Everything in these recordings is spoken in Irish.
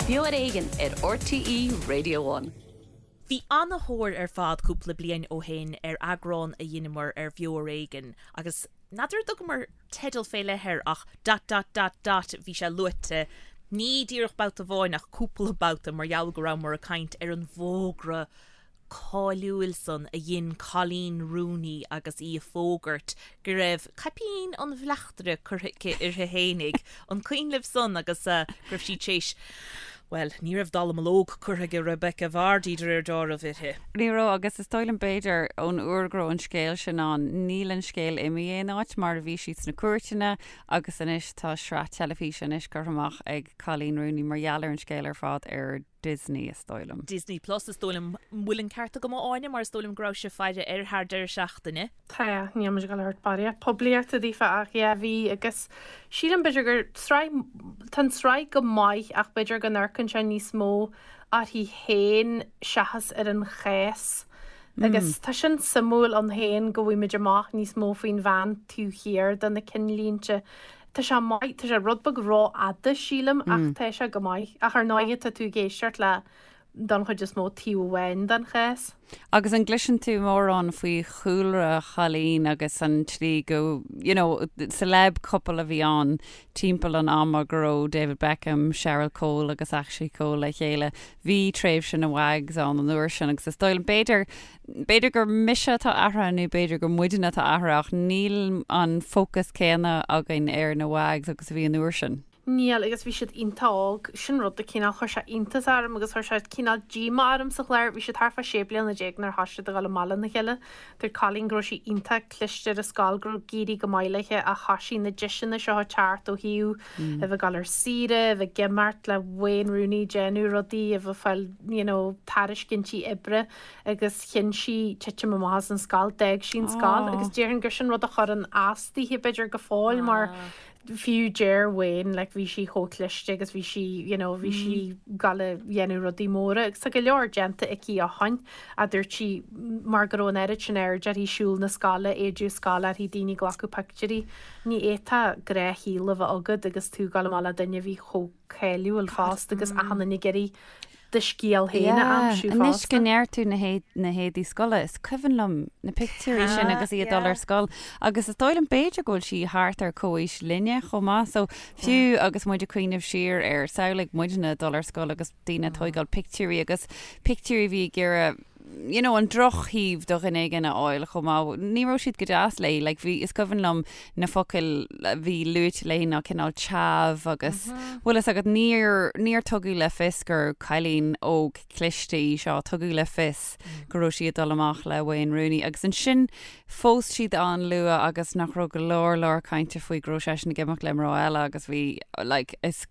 Beo ar Éigean ar RTÉ Radio One. Bhí ana-thóir ar fad cúpla bliain ó shin ar eagrán a dheineamar ar Bheo ar Éigean agus n'fheadar an dtugamar teideal fé leith air ach dot dot dot dot bhí sé luaite ní díreach babhta amháin ach cúpla babhta mar gheall go rabhamar ag caint ar an bhfógra cáiliúil san a dhein Coleen Rooney agus í ag fógairt go raibh caipín an bhleachtaire curtha aici uirthi fhéinig. An cuimhin libh san agus go raibh sí tar éis, bhuel, ní raibh dallamullóg curtha ag Rebekah Vardy de réir dealraimh uirthi. Ní raibh agus is dóigh liom b'fhéidir ón uair go raibh an scéal sin ann, níl an scéal imithe aon áit mar a bhí sí sna cúirteanna agus anois tá sraith teilifíse anois curtha amach ag Coleen Rooney mar gheall ar an scéal ar fad ar Disney is dóigh liom. Disney Plus is dóigh liom. An bhfuil an ceart agam a Áine mar is dóigh liom go raibh sibh ag faire air thar deireadh seachtaine. Tá, níl muid ag dul a thabhairt barraíocht poiblíochta daofa ach yeah bhí agus sílim b'fhéidir gur sraith, tá an tsraith go maith ach b'fhéidir go n-amharcann sé níos mó uirthi féin seachas ar an chás agus tá sin suimiúil ann féin go bhfaighimid amach níos mó faoin bhean taobh thiar de na cinnlínte Tá sé maith, tá sé rud beag rófhada sílim ach tá sé go maith. Ach ar ndóighe tá tú ag éisteacht le don chuid is mó taobh amháin den chás. Agus an gcloiseann tú mórán faoi chúlra Choleen agus an tslí go, you know, celeb couple a bhí ann timpeall an ama go raibh David Beckham, Cheryl Cole agus Ashley Cole le chéile. Bhí tréimhse na WAGs ann an uair sin agus is dóigh liom, b'fhéidir, B'fhéidir gur mise atá athraithe nó b'fhéidir gur muidne atá athraithe ach níl an fócas céanna againn ar na WAGs agus a bhí an uair sin. Níl, agus bhí siad iontach óg. Sin rud a cineál chuir sé iontas orm agus chuir sé cineál díomá orm sa chlár. Bhí siad thart fá 16 bliana nuair a thosaigh siad a dhul amach lena chéile. Dúirt Colleen go raibh sí iontach cliste ar an scoil, go raibh ag éirí go maith léi ach thosaigh na deiseanna seo ag teacht ó thaobh a bheith ag dul ar saoire, a bheith ag imeacht le Wayne Rooney, déanamh rudaí, a bheith ag fáil you know tairiscintí oibre. agus chinn sí titim amach as an scoil, d'fhág sí an scoil agus déarfainn gur sin rud a chuireann as daoithe b'fhéidir go fóill mar fiú deir Wayne like bhí sí chomh cliste agus bhí sí you know bhí sí ag dul a dhéanamh rudaí móra agus tá go leor déanta aici ó shoin a dúirt sí mar go raibh an oiread sin aird uirthi siúl na scoile, éide scoile uirthi, daoine ag glacadh pictiúirí. Ní fhéadfá gnáthshaol a bheith agat agus tú ag dul amach le duine a bhí chomh cáiliúil fosta agus achan duine ag iarraidh do scéal féin a aimsiú fosta. Anois go ndeir tú na héadaí scoile, is cuimhin liom na pictiúirí sin agus í ag dul ar scoil agus is dóigh liom b'fhéidir go bhfuil sí thart ar comhaois linne chomh maith so fiú agus muid ag cuimhneamh siar ar samhlaigh muidne ag dul ar scoil agus daoine ag tóigeáil pictiúirí agus pictiúirí a bhí ag iarraidh you know, an drochthaobh de dhuine éigin a fháil chomh maith. Ní raibh siad go deas léi, like, bhí, is cuimhin liom na focail a bhí luaite léi ná cineál chav agus, bhfuil fhios agat, níor, níor tugadh le fios gur cailín óg cliste í seo, tugadh le fios go raibh sí ag dul amach le Wayne Rooney agus ansin phós siad an-luath agus nach raibh go leor leor cainte faoi go raibh seisean ag imeacht le mná eile agus bhí, like, is,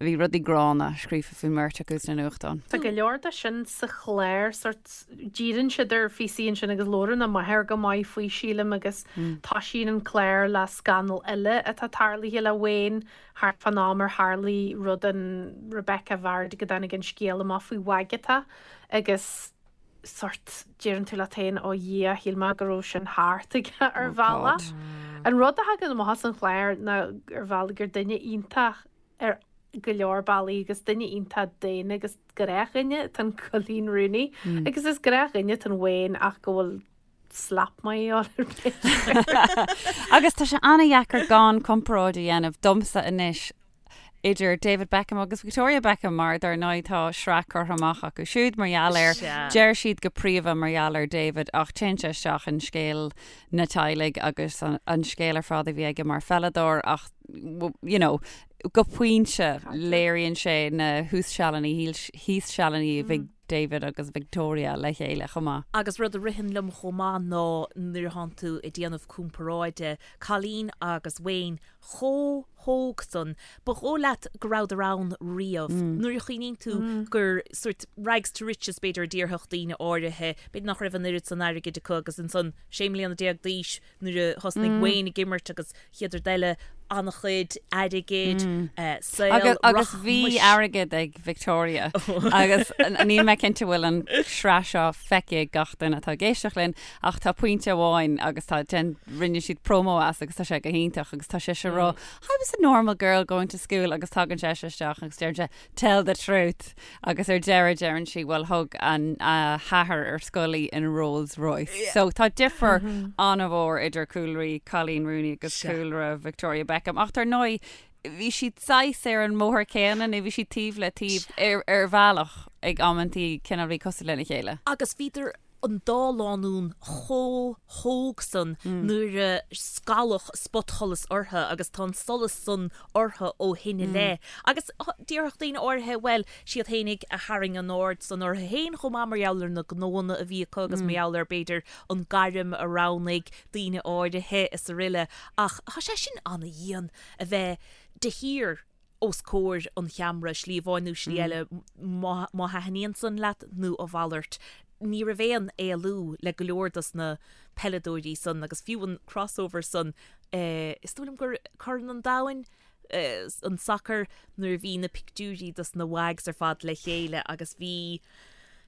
Bhí rudaí gránna scríofa faoin mbeirt acu sna nuachtáin. Tá go leor de sin sa chlár, sórt, díríonn siad ar phíosaí ansin agus labhrann a máthair go maith faoi, sílim, agus toisíonn an clár le scannal eile atá tarlaithe le Wayne thart fán am ar tharlaigh rud an Rebekah Vardy go dtáinig an scéal amach faoi Wagatha agus sórt, deireann tú leat féin, ó Dhia, shíl mé go raibh sin thart aige ar bhealach. An rud a thagann amach as an chlár ná ar bhealach gur duine iontach ar go leor bealaí agus duine iontach daonna agus gnáthdhuine atá in Coleen Rooney agus is gnáthdhuine atá in Wayne ach go bhfuil slap maith ar b'fhéidir. Agus tá sé an-dheacair gan comparáid a dhéanamh domsa anois idir David Beckham agus Victoria Beckham mar dar ndóigh tá sraith curtha amach acu siúd mar gheall air. Deir siad go príomha mar gheall ar David ach téann sé isteach in scéal na teaghlaigh agus an scéal ar fad a bhí aige mar pheileadóir ach you know, go pointe léiríonn sé na thuas sealanna thíos sealanna a bhí David agus Victoria le chéile chomh maith. Agus rud a ritheann liom chomh maith ná nuair atánn tú ag déanamh comparáide, Colleen agus Wayne chomh hóg san, ba dhóigh leat go rabhadar ann riamh. Nuair a chuimhníonn tú gur sort rags to riches b'fhéidir a déarfadh daoine áirithe, b'fhéidir nach raibh an oiread san airgid acu agus ansan 16 mbliana d'aois nuair a thosnaigh Wayne ag imirt agus chéad rud eile. An-chuid airgid, saol Agus bhí airgead ag Victoria agus níl mé cinnte bhfuil an sraith seo feicthe ag gach duine atá ag éisteacht linn ach tá pointe amháin agus tá den rinne siad promo as agus tá sé go hiontach agus tá sise ag rá I was a normal girl going to school agus tagann seisean isteach agus deireann sé tell the truth agus ar deireadh deireann sí bhuel thug an a hathair ar scoil í in Rolls Royce. So tá difear an-mhór idir cúlraí Coleen Rooney agus cúlra Victoria Beckham ach dar ndóigh bhí siad saghas ar an mbóthar céanna nó bhí siad taobh le taobh ar ar bhealach ag amantaí cineál bhí cosúil lena chéile. Agus bhíodar an dá lánúin chomh hóg san nuair a scaladh spotsholas orthu agus tá an solas san orthu ó shin i leith. Agus déarfadh daoine áirithe, bhuel, siad fhéinig a tharraing an aird san orthu féin chomh maith mar gheall ar na gnóanna a bhí acu agus mar gheall ar, b'fhéidir, an gairm a roghnaigh daoine áirithe is aroile. Ach tá sé sin ana-dhian a bheith de shíor os comhair an cheamara, slí amháin nó slí eile, má thaitníonn san leat nó a mhalairt. Ní raibh aon éalú le go leor dos na peileadóirí san agus fiú an crossover san, is dóigh liom gur Corn an Domhain, an sacar, nuair a bhí na pictiúirí dos na WAGs ar fad le chéile agus bhí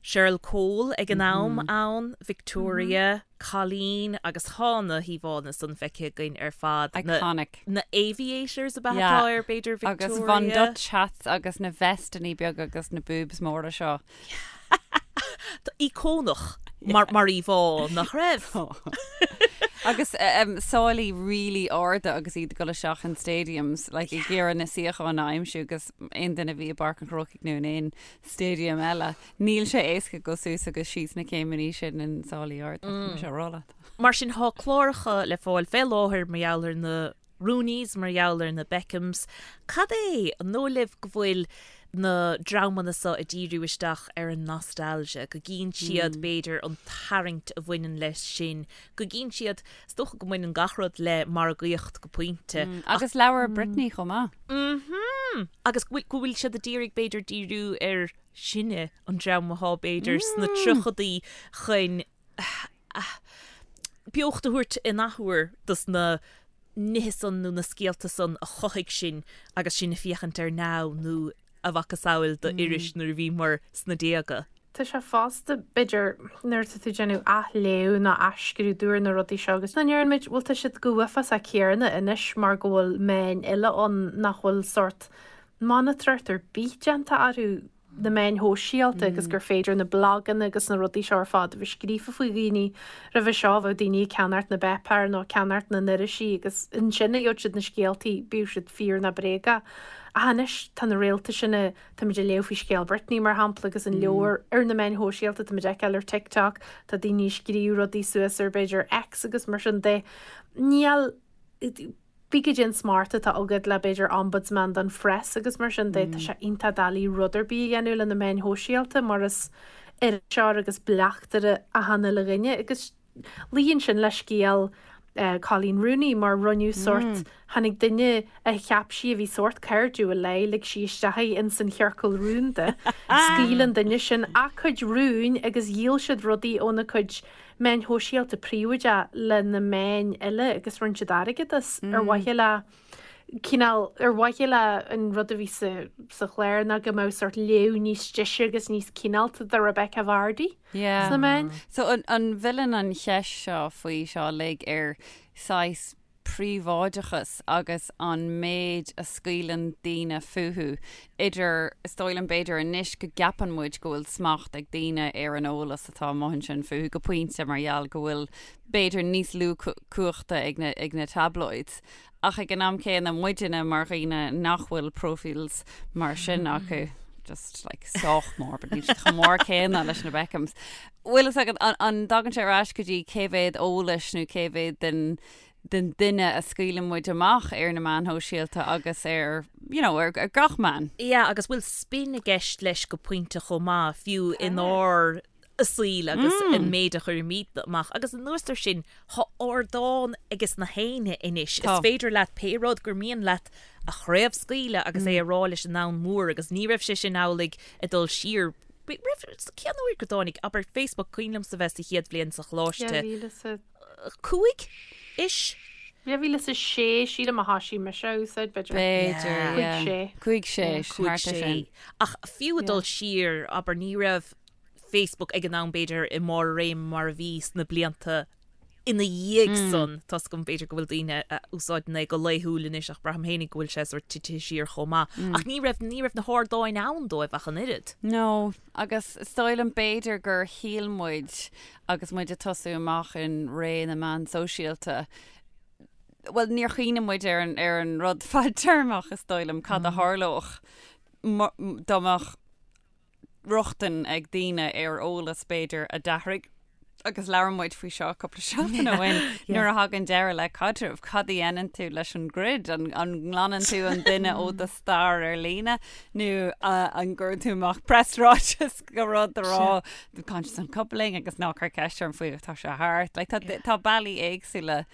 Cheryl Cole ag an am ann, Victoria, Coleen agus tá na híomhánna san feicthe againn ar fad. Iconic. Na aviators ab ea atá air, b'fhéidir, Victoria. Agus Von Dutch hats agus na vesteannaí beaga agus na boobs móra seo. Íocónach mar mar íomhá, nach raibh? Agus sálaí really arda agus iad ag dul isteach in stadiums, like ag iarraidh na suíocháin a aimsiú agus aon duine a bhí i bPáirc an Chrócaigh nó in aon stadium eile. Níl sé éasca dul suas agus síos na céimeanna sin in sálaí arda, tá mise á rá leat. Mar sin, tá cláracha le fáil fé láthair mar gheall ar na Rooneys, mar gheall ar na Beckhams. Cad é, an dóigh libh go bhfuil na dreamanna seo ag díriú isteach ar an nostalgia, go gcíonn siad, b'fhéidir, an tarraingt a bhaineann leis sin, go gcíonn siad, is dócha go mbaineann gach rud le margaíocht go pointe. Agus leabhar Britney chomh maith. Mhm! Agus go bhfuil siad ag iarraidh b'fhéidir díriú ar sinne, an dream athá b'fhéidir sna tríochadaí chun beocht a thabhairt in athuair dos na nithe san nó na scéalta san a chothaigh sinn agus sinn ag féachaint ar Now nó a mhacasamhail d'iris nuair a bhíomar sna déaga. Tá sé fosta, b'fhéidir, nuair atá tú ag déanamh athléamh nó athscrúdú ar na rudaí seo agus an ndeireann muid, bhuel tá siad chomh huafásach céanna anois mar go bhfuil meáin eile ann nach bhfuil sórt monatóireacht ar bith déanta orthu, na meáin shóisialta agus gur féidir na blaganna agus na rudaí seo ar fad a bheith scríofa faoi dhaoine. Roimhe seo bheadh daoine ag ceannacht na bpáipéar nó ag ceannacht na n-irisí agus ansin a gheobhadh siad na scéaltaí, bíodh siad fíor nó bréagach. Ach anois tá na réalta sin a Táimid ag léamh faoi scéal Britney, mar shampla, agus an leabhar ar na meáin shóisialta, táimid ag feiceáil ar TikTok, tá daoine ag scríobh rudaí suas ar b'fhéidir X agus mar sin de. Níl, pé cad é an smacht atá agat le b'fhéidir ombudsman don phress agus mar sin de, tá sé iontach doiligh rud ar bith a dhéanamh le na meáin shóisialta mar is iriseoir agus bleachtaire achan uile dhuine agus Luíonn sin le scéal Coleen Rooney mar rinneadh sórt, tháinig duine a cheap sí a bhí sórt cairdiúil léi, lig sí isteach í ins an chiorcal rúnda, scaoil an duine sin a cuid rúin agus dhíol siad rudaí óna cuid meáin shóisialta príobháideach le na meáin eile agus rinne siad airgead as ar mhaithe le cineál, ar mhaithe le an rud a bhí sa sa chlár ná go mbeadh sórt léamh níos deise agus níos cineálta do Rebekah Vardy Yeah. sna meáin. So an an bhfilleann an cheist seo faoi seo uilig ar saghas príobháideachas agus an méid a scaoileann daoine fúthu idir, is dóigh liom b'fhéidir anois go gceapann muid go bhfuil smacht ag daoine ar an eolas atá amuigh ansin fúthu go pointe mar gheall go bhfuil b'fhéidir níos lú cumhachta ag na ag na tabloids Ach ag an am céanna, muidinne mar dhaoine nach bhfuil profiles mar sin acu, just like sách mór, but níl siad chomh mór céanna leis na Beckhams. Bhfuil fhios agat, an, an dtagann sé ar ais go dtí cé mhéad eolais nó cé mhéad den, den duine a scaoileann muid amach ar na meáin shóisialta agus ar, you know, ar, ar gach meán? Yeah, agus bhfuil spin i gceist leis go pointe chomh maith, fiú inár saoil agus an méid a chuirimid amach. Agus anuas ar sin, tá ardán ages na héinne anois. Is féidir leat pé rud gur mian leat a chraobhscaoileadh agus é a rá leis an domhan mór agus ní raibh sé sin amhlaidh ag dul siar. Raibh, cén uair go dtáinig, abair, Facebook, cuimhin liomsa bheith sa chéad bhliain sa choláiste. 5 ish? 2006 sílim a thoisigh mise a úsáid, b'fhéidir. B'fhéidir, yeah. 5, 6. 5, 6, thart ar sin. Ach fiú ag dul siar, abair, ní raibh Facebook ag an am b'fhéidir i mbarr a réime mar a bhí sna blianta ina dhiaidh san. Tá's agam b'fhéidir go bhfuil daoine a úsáideann é go laethúil anois ach braithim féinig go bhfuil sé sórt titithe siar chomh maith. Ach ní raibh, ní raibh na hardáin ann dóibh ach an oiread. No, agus is dóigh liom b'fhéidir gur shíl muid agus muid ag tosú amach in ré na meán sóisialta, bhuel níor chuimhnigh muid ar an, ar an rud fadtéarmach is dóigh liom, cad a tharlódh dá mbeadh rochtain ag daoine ar eolas b'fhéidir a d'athraigh agus labhair muid faoi seo cúpla seachtain ó shin nuair a thagann deireadh le caidreamh, cad a dhéanann tú leis an gcruid? An, an nglanann tú an duine ó do stair ar líne nó an gcuireann tú amach preasráiteas go rud a rá conscious uncoupling agus ná cuir ceist orm faoi tá sé thart. Like, tá, tá bealaí éagsúla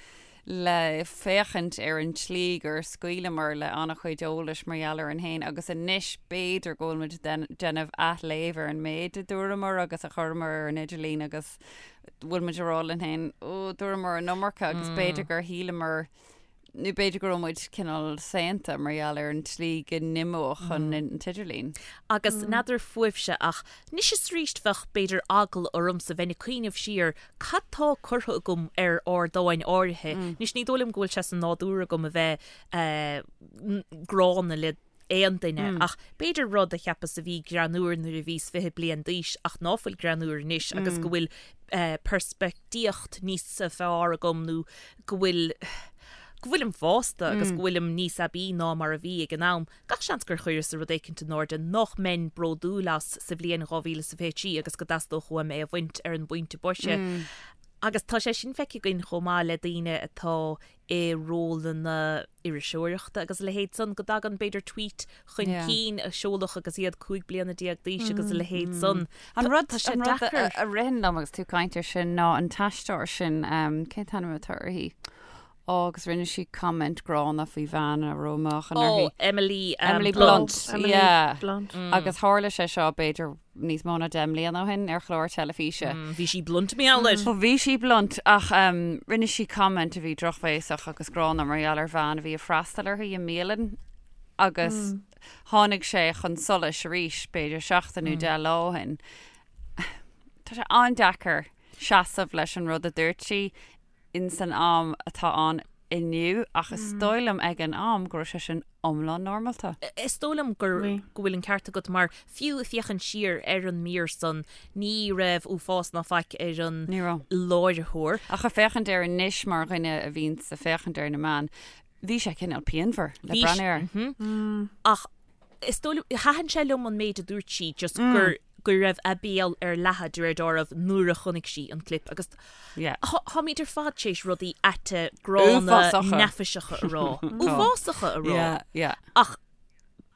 le féachaint ar an tslí gur scaoileamar le an-chuid eolais mar gheall orainn féin agus anois b'fhéidir go bhfuil muid ag déanamh athléamh ar an méid a dúramar agus a chuireamar ar an idirlíon agus bhfuil muid ag rá linn féin, ó, dúramar an iomarca agus b'fhéidir gur shíleamar nó b'fhéidir go raibh muid cineál saonta mar gheall ar an tslí go n-imeodh an t-idirlíon. Agus n'fheadar fúibhse ach anois is arís bheadh b'fhéidir eagla ormsa bheinn ag cuimhneamh siar cad tá curtha agam ar ardáin áirithe. Anois ní dóigh liom go bhfuil sé sa nádúr agam a bheith gránna le aon duine ach b'fhéidir rud a cheapas a bhí greannúr nuair a bhíos 20 bliain d'aois ach ná fuil greannúr anois agus go bhfuil peirspictíocht níos fearr agam nó go bhfuil go bhfuilim fásta agus go bhfuilim níos aibí ná mar a bhí ag an am. Gach seans gur chuireas rud éicint in airde nach mbeinn bródúil as sa bhliain 2023 agus go dteastódh uaim é a bhaint ar an bpointe boise. Agus tá sé sin feicthe againn chomh maith le daoine atá i rólanna iriseoireachta agus a leithéid san, go dtagann b'fhéidir tweet chun cinn a seoladh agus iad 15 bliana d'aois agus a leithéid san. An rud, tá sé deacair. a ritheann liom agus tú ag caint air sin ná an t-aisteoir sin, cén t-ainm atá uirthi? Ó, agus rinne sí comment gránna faoi bhean a raibh meáchan uirthi. Ó, Emily Emily Blunt. Emily yeah. Blunt. Agus tharla sé seo b'fhéidir níos mó ná 10 mbliana ó shin ar chlár teilifíse. Bhí sí blunt mar gheall air. Ó bhí sí blunt ach rinne sí comment a bhí drochbhéasach agus gránna mar gheall ar bhean a bhí ag freastal uirthi i mbialann agus tháinig sé chun solais arís b'fhéidir seachtain nó 10 lá ó shin. Tá sé an-deacair seasamh leis an rud a dúirt sí in san am atá ann inniu ach is dóigh liom ag an am go raibh sé sin iomlán normálta. Is dóigh liom gur go bhfuil an ceart agat mar fiú ag féachaint siar ar an mír san ní raibh uafás ná faic ar an Ní raibh. láithreoir. Ach ag féachaint air anois mar dhuine a bhíonns ag féachaint ar na meáin, bhí sé cineál pianmhar le Bhí breathnú air. Ach is dóigh liom, thaitin sé liom an méid a dúirt sí just gur go raibh a béal ar leathadh de réir dealraimh nuair a chonaic sí an clip agus táimid ar fad tar éis rudaí aite gránna neafaiseacha a rá. Uafásacha a rá. Ach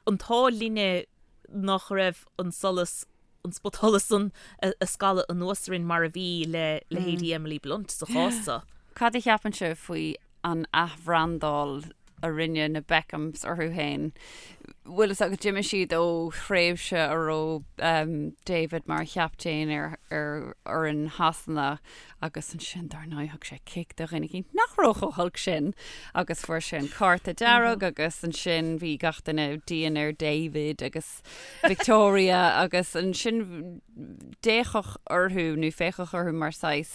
an t-ádh linne nach raibh an solas, an spotsholas san ag scalladh anuas orainn mar a bhí le leithéidí Emily Blunt sa chás seo. Cad a cheapann sibh faoi an athbhrandáil a rinne na Beckhams orthu féin. Bhfuil fhios agat, d'imigh siad ó thréimhse a raibh David mar chaptaen ar ar fhoireann Shasana agus ansin dar ndóigh thug sé cic do dhuine éicint nach raibh chomh holc sin agus fuair sé an cárta dearg agus ansin bhí gach duine dian ar David agus Victoria agus ansin d'fhéachadh orthu nó féachadh orthu mar saghas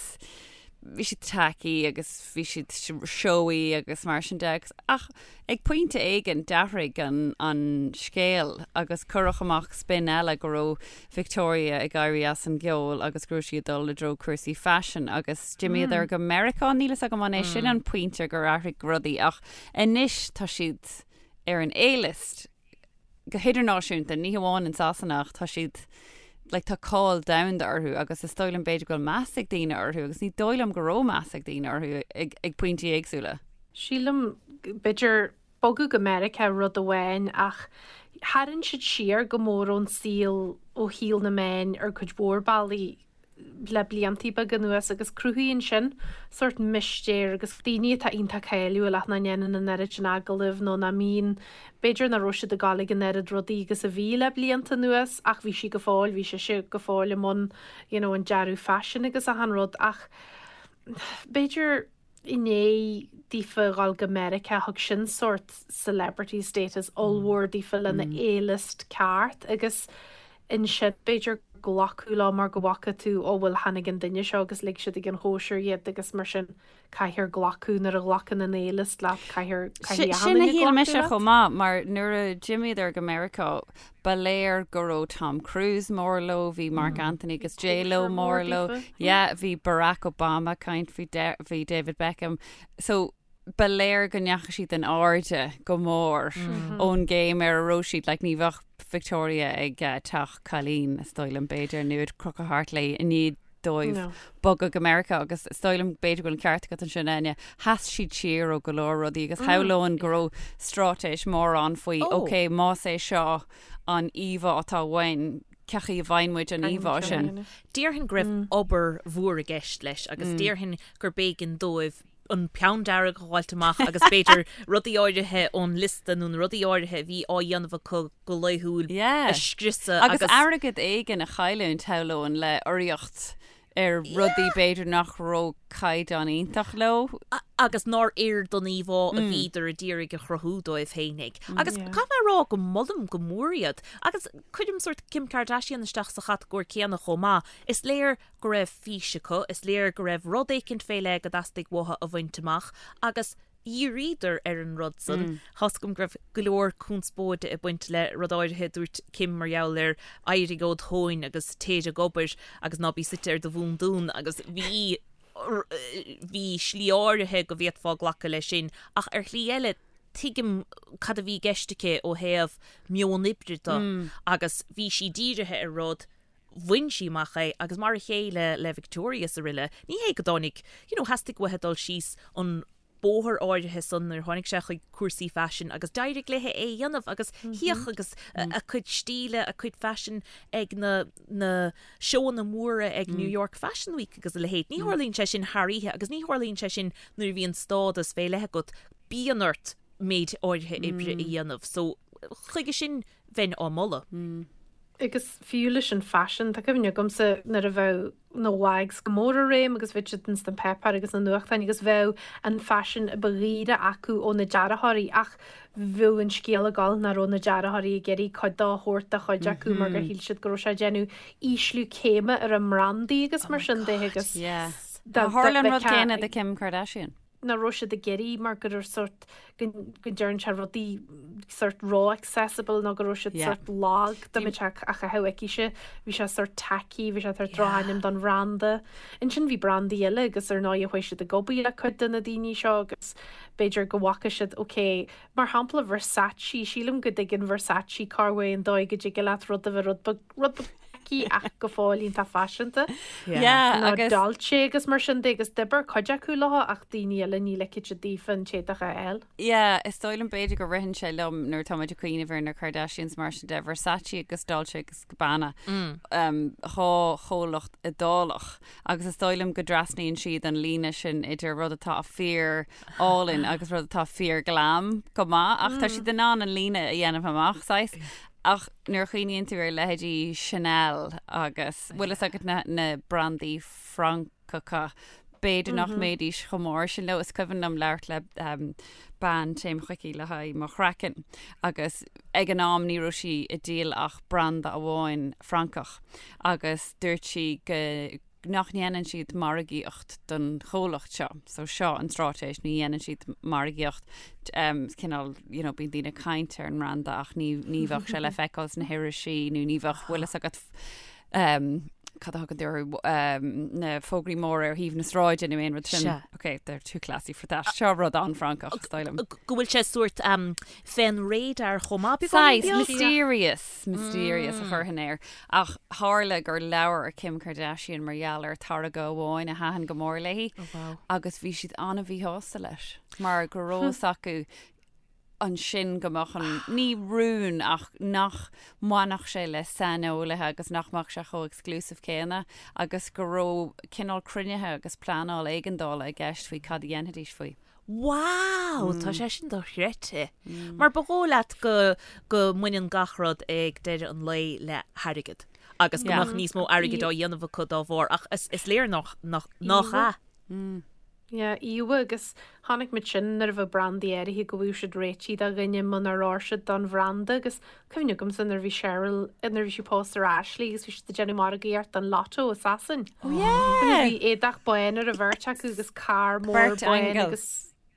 bhí siad tacky agus bhí siad showy agus mar sin de agus ach ag pointe éigin d'athraigh an an scéal agus cuireadh amach spin eile go raibh Victoria ag éirí as an gceol agus go raibh sí ag dul i dtreo cúrsaí faisin agus d'imíodar go Meiriceá níl fhios agam an é sin an pointe gur athraigh rudaí ach anois tá siad ar an A-list go hidirnáisiúnta, ní hamháin in Sasana ach tá siad, like, tá cáil domhanda orthu agus is dóigh liom b'fhéidir go bhfuil meas ag daoine orthu agus ní dóigh liom go raibh meas ag daoine orthu ag, ag pointí éagsúla. Sílim, b'fhéidir, bogadh go Meiriceá rud amháin ach tharraing siad siar go mór ón saol, ó shaol na meáin ar cuid mhór bealaí. le bliantaí beaga anuas agus cruthaíonn sin sórt mistéir agus daoine atá iontach cáiliúil ach nach ndéanann an oiread sin agallamh nó nach mbíonn, b'fhéidir nach raibh siad ag gabháil ag an oiread rudaí agus a bhí le blianta anuas ach bhí sí go fóill, bhí sise go fóill i mbun you know an dearadh faisin agus achan rud ach b'fhéidir. i ndiaidh daofa dhul go Meiriceá thug sin sórt celebrity status ollmhór daofa lena A-list ceart agus ansin b'fhéidir glacadh leo mar go bhfaca tú ó bhuel tháinig an duine seo agus lig siad ag an chóisir iad agus mar sin caithfear glacadh nuair a ghlacann an A-list leat caithfear caithfidh achan Sin a duine shíl glacadh mise leat. chomh maith mar nuair a d'imíodar go Meiriceá ba léir go raibh Tom Cruise mór leo, bhí Marc Anthony agus J-Lo Cóisir mór mór leo, daofa. yeah, bhí Barack Obama ag caint, bhí bhí David Beckham. So ba léir go ndeachaigh siad in airde go mór ón gcéim ar a raibh siad, like ní bheadh Victoria ag teach cailín, is dóigh liom, b'fhéidir, nó ag crochadh thart léi i ndiaidh dóibh No. bogadh go Meiriceá agus is dóigh liom b'fhéidir go bhfuil an ceart agat ansin Áine, sheas siad siar ó go leor rudaí agus shamhlóinn go raibh straitéis mór ann faoi Oh. ok más é seo an íomhá atá uainn, cén chaoi a bhfaigheann muid an Caithfidh íomhá muid seo a sin? dhéanamh. Déarfainn go raibh obair mhór i gceist leis agus déarfainn gur b'éigean dóibh an peann dearg a fháilt amach agus b'fhéidir rudaí áirithe ón liosta nó na rudaí áirithe a bhí á dhéanamh acu go laethúil Yeah. a scriosadh Agus agus airgead éigin a chailliúint, shamhlóinn, le urraíocht ar rudaí b'fhéidir nach raibh caighdeán iontach leo. agus nár oir don íomhá a bhíodar a d'iarraidh a chruthú dóibh féinig. Agus caithfidh mé a rá go molaim go mór iad. Agus cuirim sórt Kim Kardashian isteach sa chatagóir céanna chomh maith. Is léir go raibh fís acu, is léir go raibh rud éicint fé leith go dteastaigh uathu a bhaint amach agus dhíríodar ar an rud san. Tá's agam go raibh go leor conspóide ag baint le rud áirithe a dúirt Kim mar gheall ar éirigh ód thóin agus téir ag obair agus ná bí suite ar do bhúndún agus bhí bhí slí áirithe go bhféadfá glacadh leis sin ach ar shlí eile tuigim cad a bhí i gceist aici ó thaobh meon oibre de agus bhí sí dírithe ar rud bhain sí amach é agus mar a chéile le Victoria is araile, ní hé go dtáinig, you know, theastaigh uaithi dul síos an bóthar áirithe san nuair a tháinig sé chuig cúrsaí faisin agus d'éirigh léi é a dhéanamh agus shuíodh agus a cuid stíle, a cuid faisin ag na na seóanna móra ag New York Fashion Week agus a leithéid. Ní tharlaíonn sé sin thar oíche agus ní tharlaíonn sé sin nuair a bhíonn stádas fé leith agat, bíonn ort méid áirithe oibre a dhéanamh. So chuige sin bheinn á moladh. Agus fiú leis an faisean, tá cuimhne agamsa nuair a bheadh na WAGs go mór i réim agus bheadh siad ins na páipéir agus na nuachtáin agus bheadh an faisean a ba dhaoire acu ó na dearthóirí ach bheadh an scéal ag dul nach raibh na dearthóirí ag iarraidh cuid dó a thabhairt do chuid acu mar gur shíl siad go raibh sé ag déanamh ísliú céime ar a mbrandaí agus mar sin de agus Tharla an rud céanna do Kim Kardashian. nach raibh siad ag iarraidh mar go raibh sórt go go ndearn sé rudaí sórt ró-accessible nó go raibh siad Yeah. sórt lag dá mbeadh sé á chaitheamh aicise bhí sé sórt tacky bhí sé sórt drochainm don bhranda. Ansin bhí brandaí eile agus ar ndóigh chuaigh siad ag obair le cuid de na daoine seo agus b'fhéidir go bhfaca siad ok mar shampla Versace sílim go dtuigeann Versace cá bhfuil an dóigh go dtig leat rud a bheith rud beag rud beag tacky ach go fóill iontach faiseanta. Yeah, Nó agus Dolce agus mar sin de agus d'oibir cuid acu leo ach daoine eile ní ligfeadh siad daofa an t-éadach a fháil. Yeah, is dóigh liom b'fhéidir go ritheann sé liom nuair atá muid ag cuimhneamh ar na Kardashians mar sin de, Versace agus Dolce agus Gabbana, um, dhá chomhlacht Iodálach agus is dóigh liom go dtrasnaíonn siad an líne sin idir rud atá fíor álainn agus rud atá fíor glam go maith ach tá siad in ann an líne a dhéanamh amach saghas. Ach nuair a chuimhníonn tú ar leithéidí Chanel agus, bhfuil fhios agat na, na brandaí Francacha, b'fhéidir nach mbeidís chomh mór sin leo. Is cuimhin liom labhairt le bean, téim chuici le haghaidh mo chraiceann agus ag an am ní raibh sí ag díol ach branda amháin Francach agus dúirt sí go, nach ndéanann siad margaíocht don chomhlacht seo. So seo an straitéis, ní dhéanann siad margaíocht, cineál, you know, bíonn daoine ag caint ar an mbranda ach ní, ní bheadh sé le feiceáil sna hirisí nó ní bheadh, bhfuil fhios agat, cad a thugann tú orthu, na fógraí móra ar thaobh na sráide nó aon rud sin. Sea. Ok, they're too classy for that. Seo rud an-Fhrancach, is dóigh liom. Go bhfuil sé sórt fén radar chomh maith, beagáinín Saghas, beag. mysterious, mysterious a chuirfinn air. Ach tharla gur labhair Kim Kardashian mar gheall ar táirge amháin a thaitin go mór léi agus bhí siad an-mhíshásta leis mar go raibh fhios acu ansin go mbeadh an, ní rún ach nach mbainfeadh sé le saineolaithe agus nach mbeadh sé chomh exclusive céanna agus go raibh cineál cruinnithe agus pleanáil éigeandála i gceist faoi cad a dhéanfaidís faoi. Wow! Tá sé sin dochreidte. Mar ba dhóigh leat go go mbaineann gach rud ag deireadh an lae le hairgead agus go mbeadh níos mó airgid á dhéanamh acu dá bharr ach is is léir nach nach nach ea. Yeah, íomha agus chonaic muid sin nuair a bheadh brandaí áirithe go bhfuil siad réitithe do dhuine munar oir siad don bhranda agus cuimhne agamsa nuair a bhí Cheryl, nuair a bhí sí pósta ar Ashley agus bhí siad ag déanamh margaíocht don Lotto i Sasain. Oh yeah! Bhí éadach bán ar an bheirt acu agus carr mór Beirt bán aingeal. agus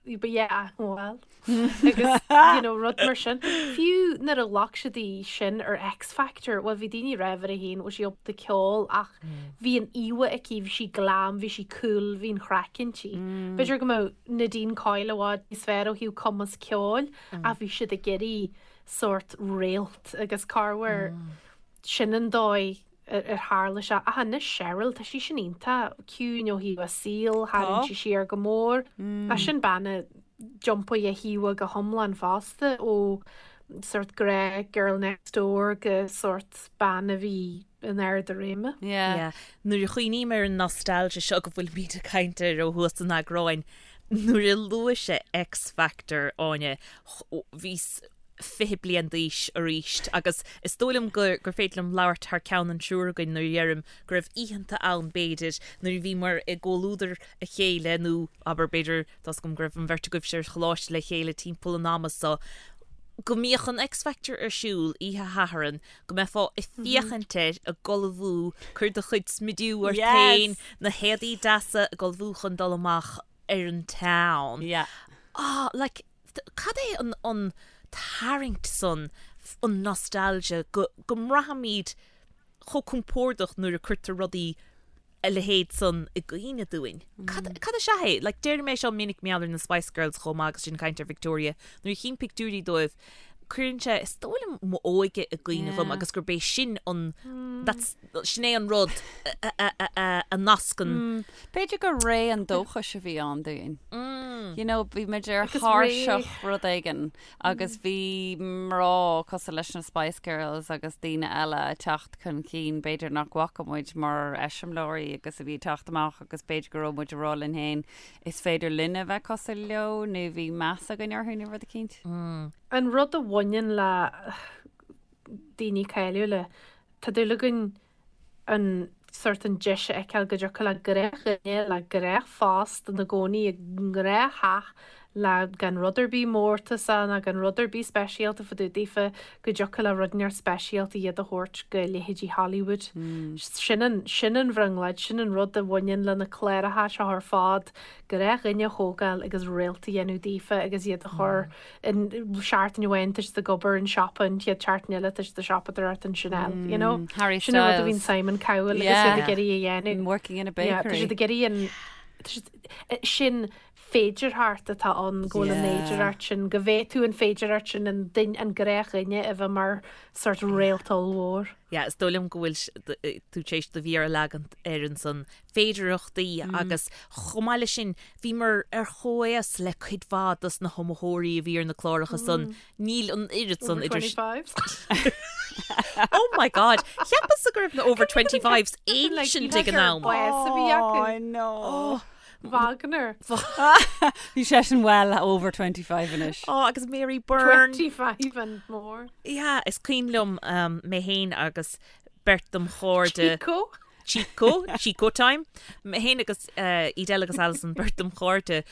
But yeah, well, agus you know, rud mar sin. Fiú nuair a ghlac siad í sin ar X Factor, bhuel bhí daoine ag rá uirthi féin, bhfuil sí ábalta ceol ach bhí an íomha aici, bhí sí glam, bhí sí cool, bhí an chraic inti. B'fhéidir go mbeadh Nadine Coyle i bhfad níos fearr ó thaobh cumas ceoil ach bhí siad ag iarraidh sórt réalt agus corruair sin an dóigh ar tharla sé. Ach anois Cheryl, tá sí sin iontach ciúin ó thaobh a saoil, tharraing sí siar go mór. Ach sin bean a d'iompaigh a híomha go hiomlán fosta ó sórt gnáth girl next door go sórt bean a bhí in ard a réime. Yeah. Nuair a chuimhním ar an nostalgia seo go bhfuilimid ag caint air ó thús an eagráin, nuair a luaigh sé X Factor, Áine, bhíos 20 bliain d'aois arís agus is dóigh liom gur gur féidir liom labhairt thar ceann an triúr againn nuair a dheirim go raibh oícheanta ann b'fhéidir nuair a bhíomar i gcomhluadar a chéile nó abair b'fhéidir tá's agam go raibh an bheirt agaibhse ar choláiste le chéile timpeall an ama so go mbíodh an X Factor ar siúl oíche Shathairn go mbeifeá ag féachaint air ag ullmhú cuir do chuid smidiú ort féin na héadaí deasa ag ullmhú chun dul amach ar an town. Yeah. Ah like Cad é an an tarraingt san, an nostalgia, go go mbraithimid chomh compordach nuair a cuirtear rudaí a leithéid san i gcuimhne dúinn? Cad cad is ea é? Like deirim é seo minic mar gheall ar na Spice Girls chomh maith agus sinn ag caint ar Victoria, nuair a chím pictiúirí dóibh, cuireann sé is dóigh liom m'óige i gcuimhne dhom agus gurb é sin an that's sin é an rud a nascann. B'fhéidir gur ré an dóchais a bhí ann dúinn. You know, bhí muid ar thairseach rud éigin agus bhí mná cosúil leis na Spice Girls agus daoine eile ag teacht chun cinn, b'fhéidir nach bhfaca muid mar eiseamláirí agus a bhí ag teacht amach agus b'fhéidir go raibh muid ag rá linn féin is féidir linne a bheith cosúil leo nó bhí meas againn orthu nó rud eicínt. An rud a bhaineann le daoine cáiliúla, Tá dúil againn an sórt an deis a fheiceáil go dtiocfadh le gnáthdhuine le gnáthphost ina gcónaí i ngnáth-theach le gan rud ar bith mórtasach ná gan rud ar bith speisialta fá dtaobh daofa go dtiocfadh le rud inteacht speisialta iad a thabhairt go leithéidí Hollywood. Sin an, sin an bhrionglóid, sin an rud a bhaineann le na cláracha seo ar fad, gnáthdhuine a thógáil agus réalt a dhéanamh daofa agus iad a chur an seachtain amháin tá siad ag obair in siopa an chéad seachtain eile tá siad ag siopadóireacht in Chanel you know Harry Sin an rud a bhíonn Styles. Simon Cowell agus iad ag iarraidh a dhéanamh. Working in a Yeah, tá bakery. siad ag iarraidh an tá siad sin féidearthacht atá ann go bhfuil an Yeah. fhéidearthacht sin go bhféadfadh an féidearthacht sin an duine an gnáthdhuine a bheith mar sort réalt ollmhór. Yeah, is dóigh liom go bhfuil tú tar éis do mhéar a leagan air ansan féidearthachtaí agus chomh maith leis sin bhíomar ar chomhaos le cuid mhaith dos na hiomaitheoirí a bhí ar na cláracha san. Níl an oiread san Over idir 25s. Oh my God! Cheapas-sa go raibh na over 25s ancient ag an am. Bás a bhí acu. Oh, no. Wagner. Bhí seisean well over 25 anois. Oh, agus Mary Byrne. 25 and more. Yeah, is cuimhin liom mé féin agus beirt dom chairde. Chico. Chico, Chico time. Mé féin agus Edel agus Alison, beirt dom chairde,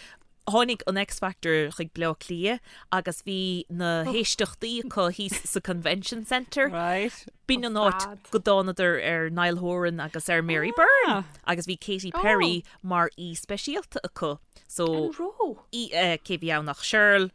tháinig an X Factor chuig Bleá Cliath agus bhí na héisteachtaí acu thíos sa Convention Centre. Right. B'in an áit go dtánadar ar Niall Horan agus ar Mary Byrne agus bhí Katy Perry mar aoi speisialta acu. So, An raibh? cé bhí ann ach Cheryl,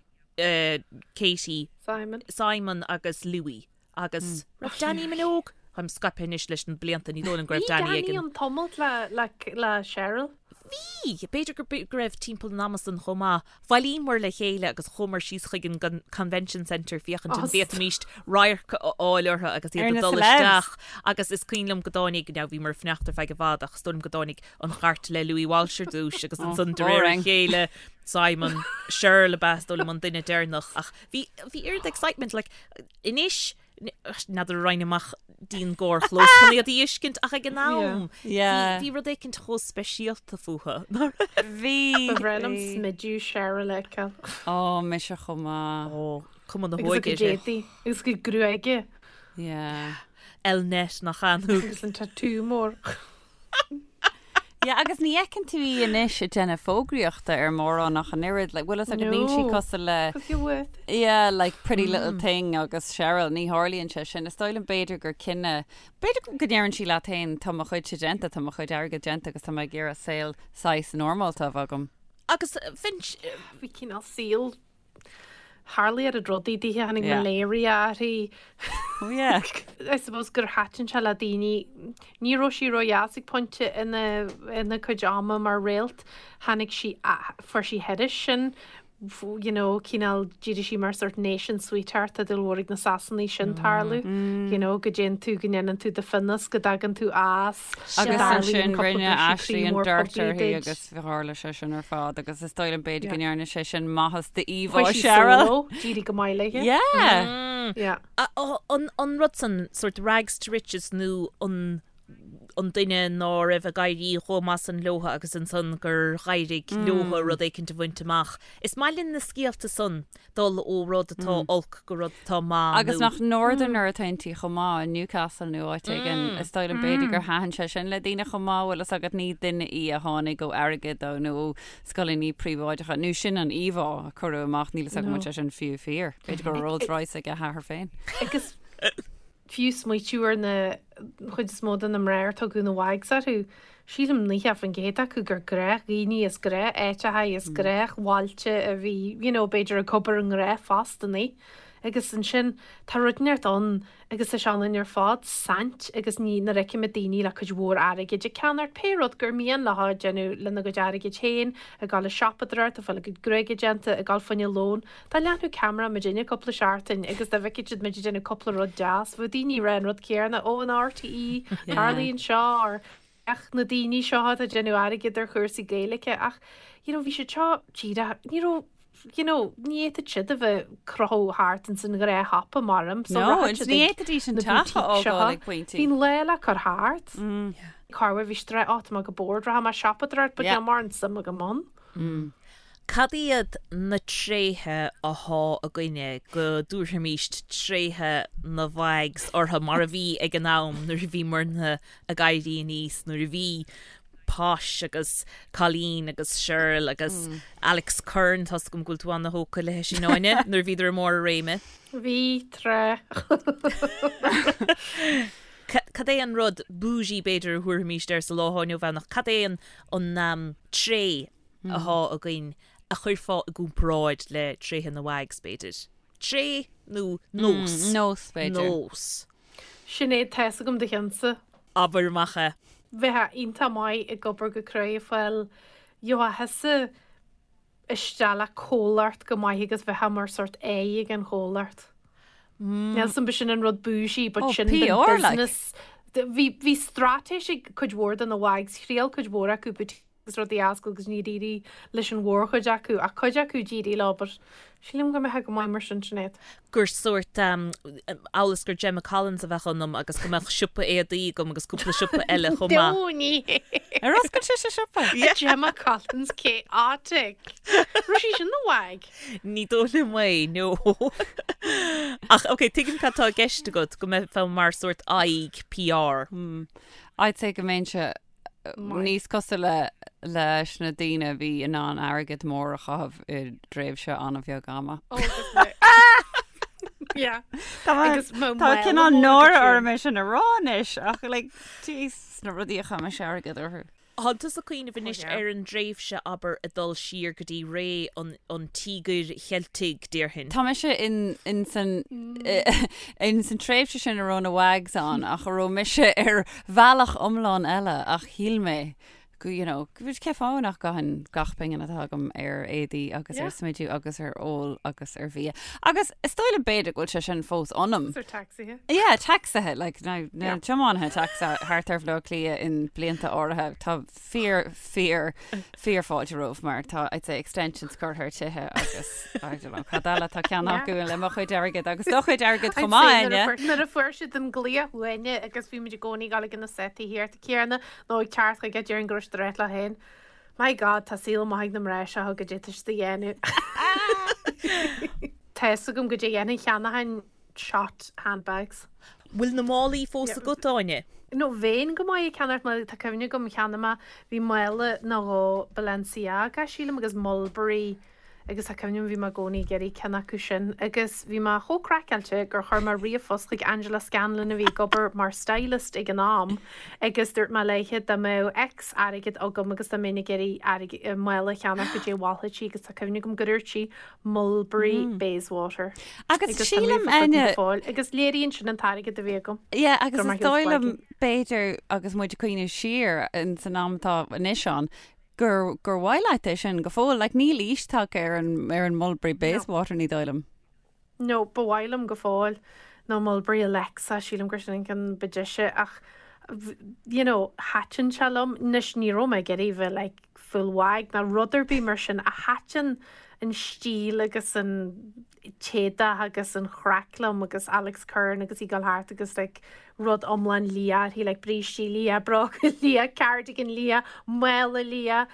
Katy, Simon. Simon agus Louis. Agus raibh Dannii Minogue? Táim scaipthe anois leis na blianta, ní dóigh liom go raibh Bhí Dannii ag Dannii an. an tumult le, le, le Cheryl. Bhí! B'fhéidir go, go raibh timpeall an ama san chomh maith. Bhailíomar le chéile agus chuamar síos chuig an Convention Centre féachaint an bhféadfaimíst radharc a fháil orthu agus iad Ar ag na dul celebs. isteach. Agus is cuimhin liom go dtáinig, now bhíomar ag fanacht ar feadh i bhfad ach is dóigh liom go dtáinig an chairt le Louis Walsh ar dtúis agus ansan de réir a boring. chéile Simon, Cheryl ab ea is dóigh liom an duine deireanach ach bhí, bhí oiread excitement like Anois, n'fheadar an raghainn amach dtí'n gcarrchlós chun iad a fheiscint ach ag an am, bhí rud éicint chomh speisialta fúthu, nach raibh? Bhí. Ba bhreá liom smidiú Cheryl a fheiceáil. Ó, mise chomh maith. Ó, cuma na Agus a hóige cuid uirthi. éadaí, agus a cuid gruaige. Yeah. Elnett nach ea nó. Agus an tatú mór. Yeah, agus ní fheiceann tú í anois ag déanamh fógraíochta ar mórán ach an oiread, like, bhfuil fhios agat, níl sí cosúil le, Cos you're worth it. Yeah, like Pretty Little Thing agus Cheryl, ní tharlaíonn sé sin. Is dóigh liom b'fhéidir gur cinneadh, b'fhéidir go ndeireann sí leat féin, tá mo chuidse déanta, tá mo chuid airgid déanta agus tá mé ag iarraidh saol saghas normálta a bheith agam. Agus Finch, Bhí cineál saol Tharla oiread rudaí dithe, tháinig malaria uirthi. Oh yeah. I suppose gur thaitin sé le daoine. Ní raibh sí ródheas ag pointe ina ina cuid ama mar réalt. Tháinig sí, fuair sí thairis sin, you know, cineál, d'éirigh sí mar sort nation sweetheart, tá dúil mhór ag na Sasanaigh sin tarlú, you know, go dtéann tú, go ndéanann tú do phionós, go dtagann tú as, Agus ansin rinne Ashley an dirt uirthi agus tharla sé sin ar fad agus is dóigh liom b'fhéidir go ndearna sé sin maitheas d'íomhá Cheryl. D'éirigh go maith léi. Yeah. Yeah. An rud san, sort rags to riches nó an an duine ná raibh ag éirí chomh maith san leotha agus ansan gur dh'éirigh leotha rud éicint a bhaint amach. Is maith linn na scéalta san dul ó rud atá olc go rud atá maith Agus nach Northerner atá inti chomh maith, i Newcastle nó áit éigin, is dóigh liom b'fhéidir gur thaitin sé sin le daoine chomh maith, bhfuil fhios agat, ní duine í a tháinig ó airgead ó nó ó scoileanna príobháideacha, nó sin an íomhá a cuireadh amach, níl fhios agam an bhfuil sé sin fiú fíor. B'fhéidir go raibh Rolls Royce ag a hathair féin. Agus fiú smaoitiú ar na chuid is mó de na mná ar tugadh na Wags orthu, sílim 90% acu gur gnáthdhaoine as gnáth-áiteacha as gnáthbhailte a bhí, you know, b'fhéidir ag obair i ngnáthphostannaí. Agus ansin tá rud inteacht ann agus tá sé ionainn ar fad saint agus ní nuair a fheicimid daoine le cuid mhór airgid ag ceannacht pé rud gur mian leo déanamh lena gcuid airgid féin, ag dul ag siopadóireacht, ag fáil a gcuid gruaige déanta, ag dul fá choinne lón. Dá leathnódh ceamara muidinne cúpla seachtain agus dá bhfeicfeadh siad muid ag déanamh cúpla rud deas, bheadh daoine ag rá an rud céanna, ó an RTÉ, tarlaíonn seo, or féach na daoine seo atá ag déanamh airgid ar chúrsaí Gaeilge ach you know bhí siad seo díreach, ní raibh you know ní fhéadfadh siad a bheith ag crochadh thart ins an ghnáthshiopa mar so No, rachadh siad ní ag fhéadfaidís an na teach a boutiques seo. fhágáil ag pointí. Bhí an lá le cur thart. Corruair bhí siad ag rá, ó tá mé go bored, rachaidh mé ag siopadóireacht but níl mórán suim agam ann. Cad iad na tréithe athá againne go dtabharfaimíst tréithe na Wags orthu mar a bhí ag an am nuair a bhíomarna ag éirí aníos, nuair a bhí Posh agus Colleen agus Shirl agus Alex Curran, tá's agam go bhfuil tú ana-thógtha léi sin Áine, nuair a bhíodar i mbarr a réime. Bhí, tráth. Cad é an rud bougie b'fhéidir a thabharfaimíst air sa lá atá inniu ann ach cad é an an tréith athá againn a chuirfeá i gcomparáid le tréithe na Wags, b'fhéidir? Tréith nó nós? Nós, b'fhéidir. Nós. Sinéad, tá's agam do cheannsa. Abair amach é. Bheifeá iontach maith ag obair go cruaidh ag fáil gheofá thusa isteach le comhlacht go maith agus bheifeá mar sort aghaidh ag an chomhlacht. Níl 'fhios a'm b'shin an rud bougie but sin den PR like. business. Bhí bhí straitéis ag cuid mhór de na Wags, thriail cuid mhór acu boutiques agus rudaí a oscailt agus níor éirigh leis an mhórchuid acu ach cuid acu d'éirigh leo but sílim go mbeifeá go maith mar sin Sinéad. gur sórt amhail is gur Gemma Collins a bheadh ionam agus go mbeadh siopa éadaí agam agus cúpla siopa eile chomh maith. No ní hé. Ar oscail sise siopa? Gemma Collins chaotic. Raibh sí sin ina wag? Ní dóigh liom é, no. Ach ok, tuigim cad tá i gceist agat, go mbeifeá mar sórt aghaidh PR. I'd say go mbeinnse níos cosúla leis na daoine a bhí in ann airgead mór a chaitheamh i dtréimhse an-bheag ama. Ó, agus mé. Yeah. Tá Agus mo tá mhaol cineál mór náire agat orm é sin a rá anois ach like, jeez, na rudaí a chaith mise airgead orthu. Thánn tusa ag cuimhneamh anois ar an dtréimhse, abair, ag dul siar go dtí ré an Tíogair Cheiltigh, déarfainn. Tá mise in in san in san tréimhse sin a raibh na Wags ann ach a raibh mise ar bhealach iomlán eile ach shíl mé go you know go cé fáth nach gcaithfinn gach pingin atá agam ar éadaí agus ar smidiú agus ar ól agus ar bhia. Agus is dóigh liom b'fhéidir go bhfuil sé sin fós ionam. Agus ar tacsaithe. Yeah, tacsaithe, like, na, na tiománaithe tacsaithe thart ar Bhaile Átha Cliath in blianta áirithe, tá fíor, fíor, fíor fáilte romhaibh mar tá, I'd say, extensions curtha ar tithe agus, I don't know, cad eile tá ceannaithe acu le mo chuid airgid agus do chuid airgid chomh maith, Áine. Nuair a fuair siad an glaoch uainne agus bhí muid i gcónaí ag dul ag na setaí céanna nó ag teacht chuige déarfainn go raibh siad ag rá leo féin, My God, tá saol maith ag na mná seo goidé tá siad a dhéanamh. Tá fhios agam goidé a dhéanfainn, cheannóchainn shot handbags. Bhfuil na málaí fós agat, Áine? No, bheinn go maith ag ceannacht málaí, tá cuimhne agam cheannaigh mé, bhí mála nó dhó Balenciaga, sílim, agus Mulberry agus tá cuimhne agam bhí mé i gcónaí ag iarraidh ceann acu sin agus bhí mé chomh craiceáilte gur chuir mé ríomhphost chuig Angela Scanlon a bhí ag obair mar stylist ag an am agus dúirt mé léithe dá mbeadh X airgead agam agus dá mbeinn ag iarraidh airgead, mála a cheannach goidé a mholfadh sí agus tá cuimhne agam gur dúirt sí Mulberry Bayswater. Agus Agus tá sílim, ríomhphost agam go fóill agus léiríonn sin an t-airgead a bhí agam. Yeah, agus Go raibh is maith dóigh liom b'fhéidir agus muid ag cuimhneamh siar in san am atá anois ann gur, gur mhaith leat é sin go fóill. Like, níl aois tagtha ar an, ar an Mulberry Bayswater, ní dóigh liom. No, ba mhaith liom go fóill. Nó Mulberry Alexa, sílim gur sin an ceann ba deise ach you know, thaitin sé liom. Anois ní raibh mé ag iarraidh bheith like full wag ná rud ar bith mar sin ach thaitin an stíl agus an t-éadach agus an chraic liom agus Alex Curran agus í ag dul thart agus like rud iomlán liath uirthi like brístí liath, bróga liath, cardigan liath, mála liath,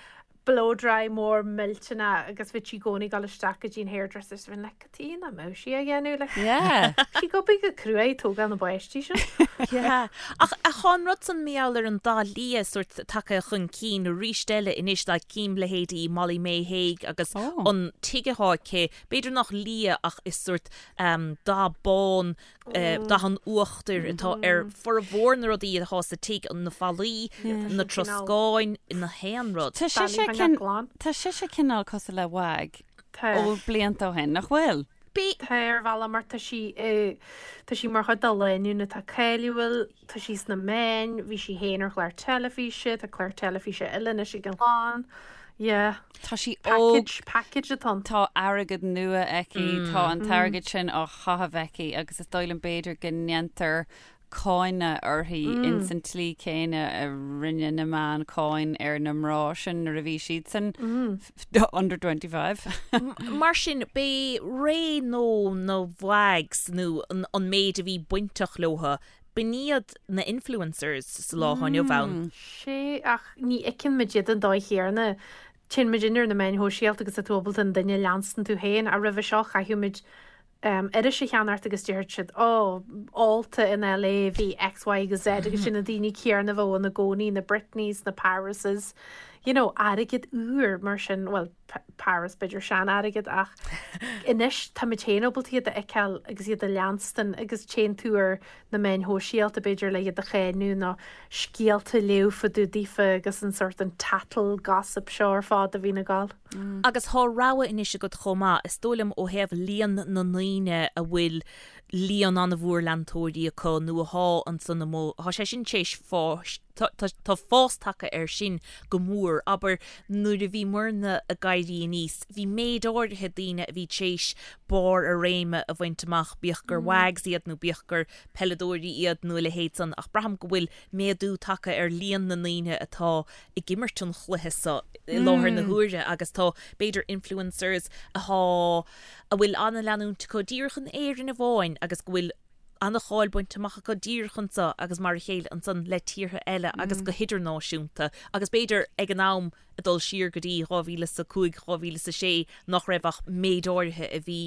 blow dry mór millteanach agus bhí sí i gcónaí ag dul isteach go dtí an hairdresser so bhínn like cad tuige nach mbeadh sí á dhéanamh like Yeah. sí ag obair go crua ag tógáil na bpáistí sin. Yeah. Ach thá an rud san mar gheall ar an dath liath sórt tagtha chun cinn arís eile anois like cím leithéidí Molly Mae Hague agus Oh. an tigh athá aici B'fhéidir nach liath ach is sórt dath bán, dath an uachtair atá ar formhór na rudaí atá sa tigh, na fallaí, na troscáin, na haon rud. Tá sise tá sise cineál cosúil le WAG ó blianta ó shin, nach bhfuil? Tá ar bhealach mar tá sí tá sí mar chuid de lánúin atá cáiliúil, tá sí sna meáin, bhí sí féin ar chlár teilifíse, tá clár teilifíse eile anois ag an chlann. Yeah. Tá sí óg. Package, package atá ann. Tá airgead nua aici, tá an t-airgead sin á chaitheamh aici agus is dóigh liom b'fhéidir go ndéantar cáineadh uirthi ins an tslí céanna a rinne na meáin cáin ar na mná sin nuair a bhí siadsan under 25. Mar sin, b'é ré nó na WAGs nó an méid a bhí bainteach leotha, b'in iad na influencers sa lá atá inniu ann. Sea, ach ní fheiceann muid iad an dóigh chéanna. Téann muid ar na meáin shóisialta agus tá tú ábalta an duine a leanstan tú féin, ach roimhe seo chaithfeadh muid iris a cheannacht agus déarfadh siad, Ó, ólta in LA bhí X, Y agus Z agus sin na daoine céanna a bheadh ann i gcónaí, na Britneys, na Parises, you know, airgead úr mar sin, bhuel, Paris b'fhéidir sean-airgead ach anois tá muid féin ábalta iad a fheiceáil agus iad a leanstan agus téann tú ar na meáin shóisialta b'fhéidir le iad a cháineadh nó scéalta a léamh fá dtaobh daofa agus an sórt an tattle gossip seo ar fad a bhíonn ag gabháil. Agus thá rogha anois agat chomh maith, is dóigh liom ó thaobh líon na ndaoine a bhfuil líon an-mhór leantóirí acu nó athá ansan amuigh, thá sé sin tar éis fáis, tá fás tagtha air sin go mór. Abair, nuair a bhí muirne ag éirí aníos, bhí méid áirithe daoine a bhí tar éis barr a réime a bhaint amach, bíodh gur WAGs iad nó bíodh gur peileadóirí iad nó a leithéid san, ach braithim go bhfuil méadú tagtha ar líon na ndaoine atá ag imirt an chluiche so i láthair na huaire agus tá, b'fhéidir, influencers athá, a bhfuil an-leanúint acu díreach in Éirinn amháin agus go bhfuil an-cháil bainte amach acu díreach anseo agus mar a chéile ansan le tíortha eile agus go hidirnáisiúnta agus b'fhéidir ag an am ag dul siar go dtí 2005, 2006 nach raibh ach méid áirithe a bhí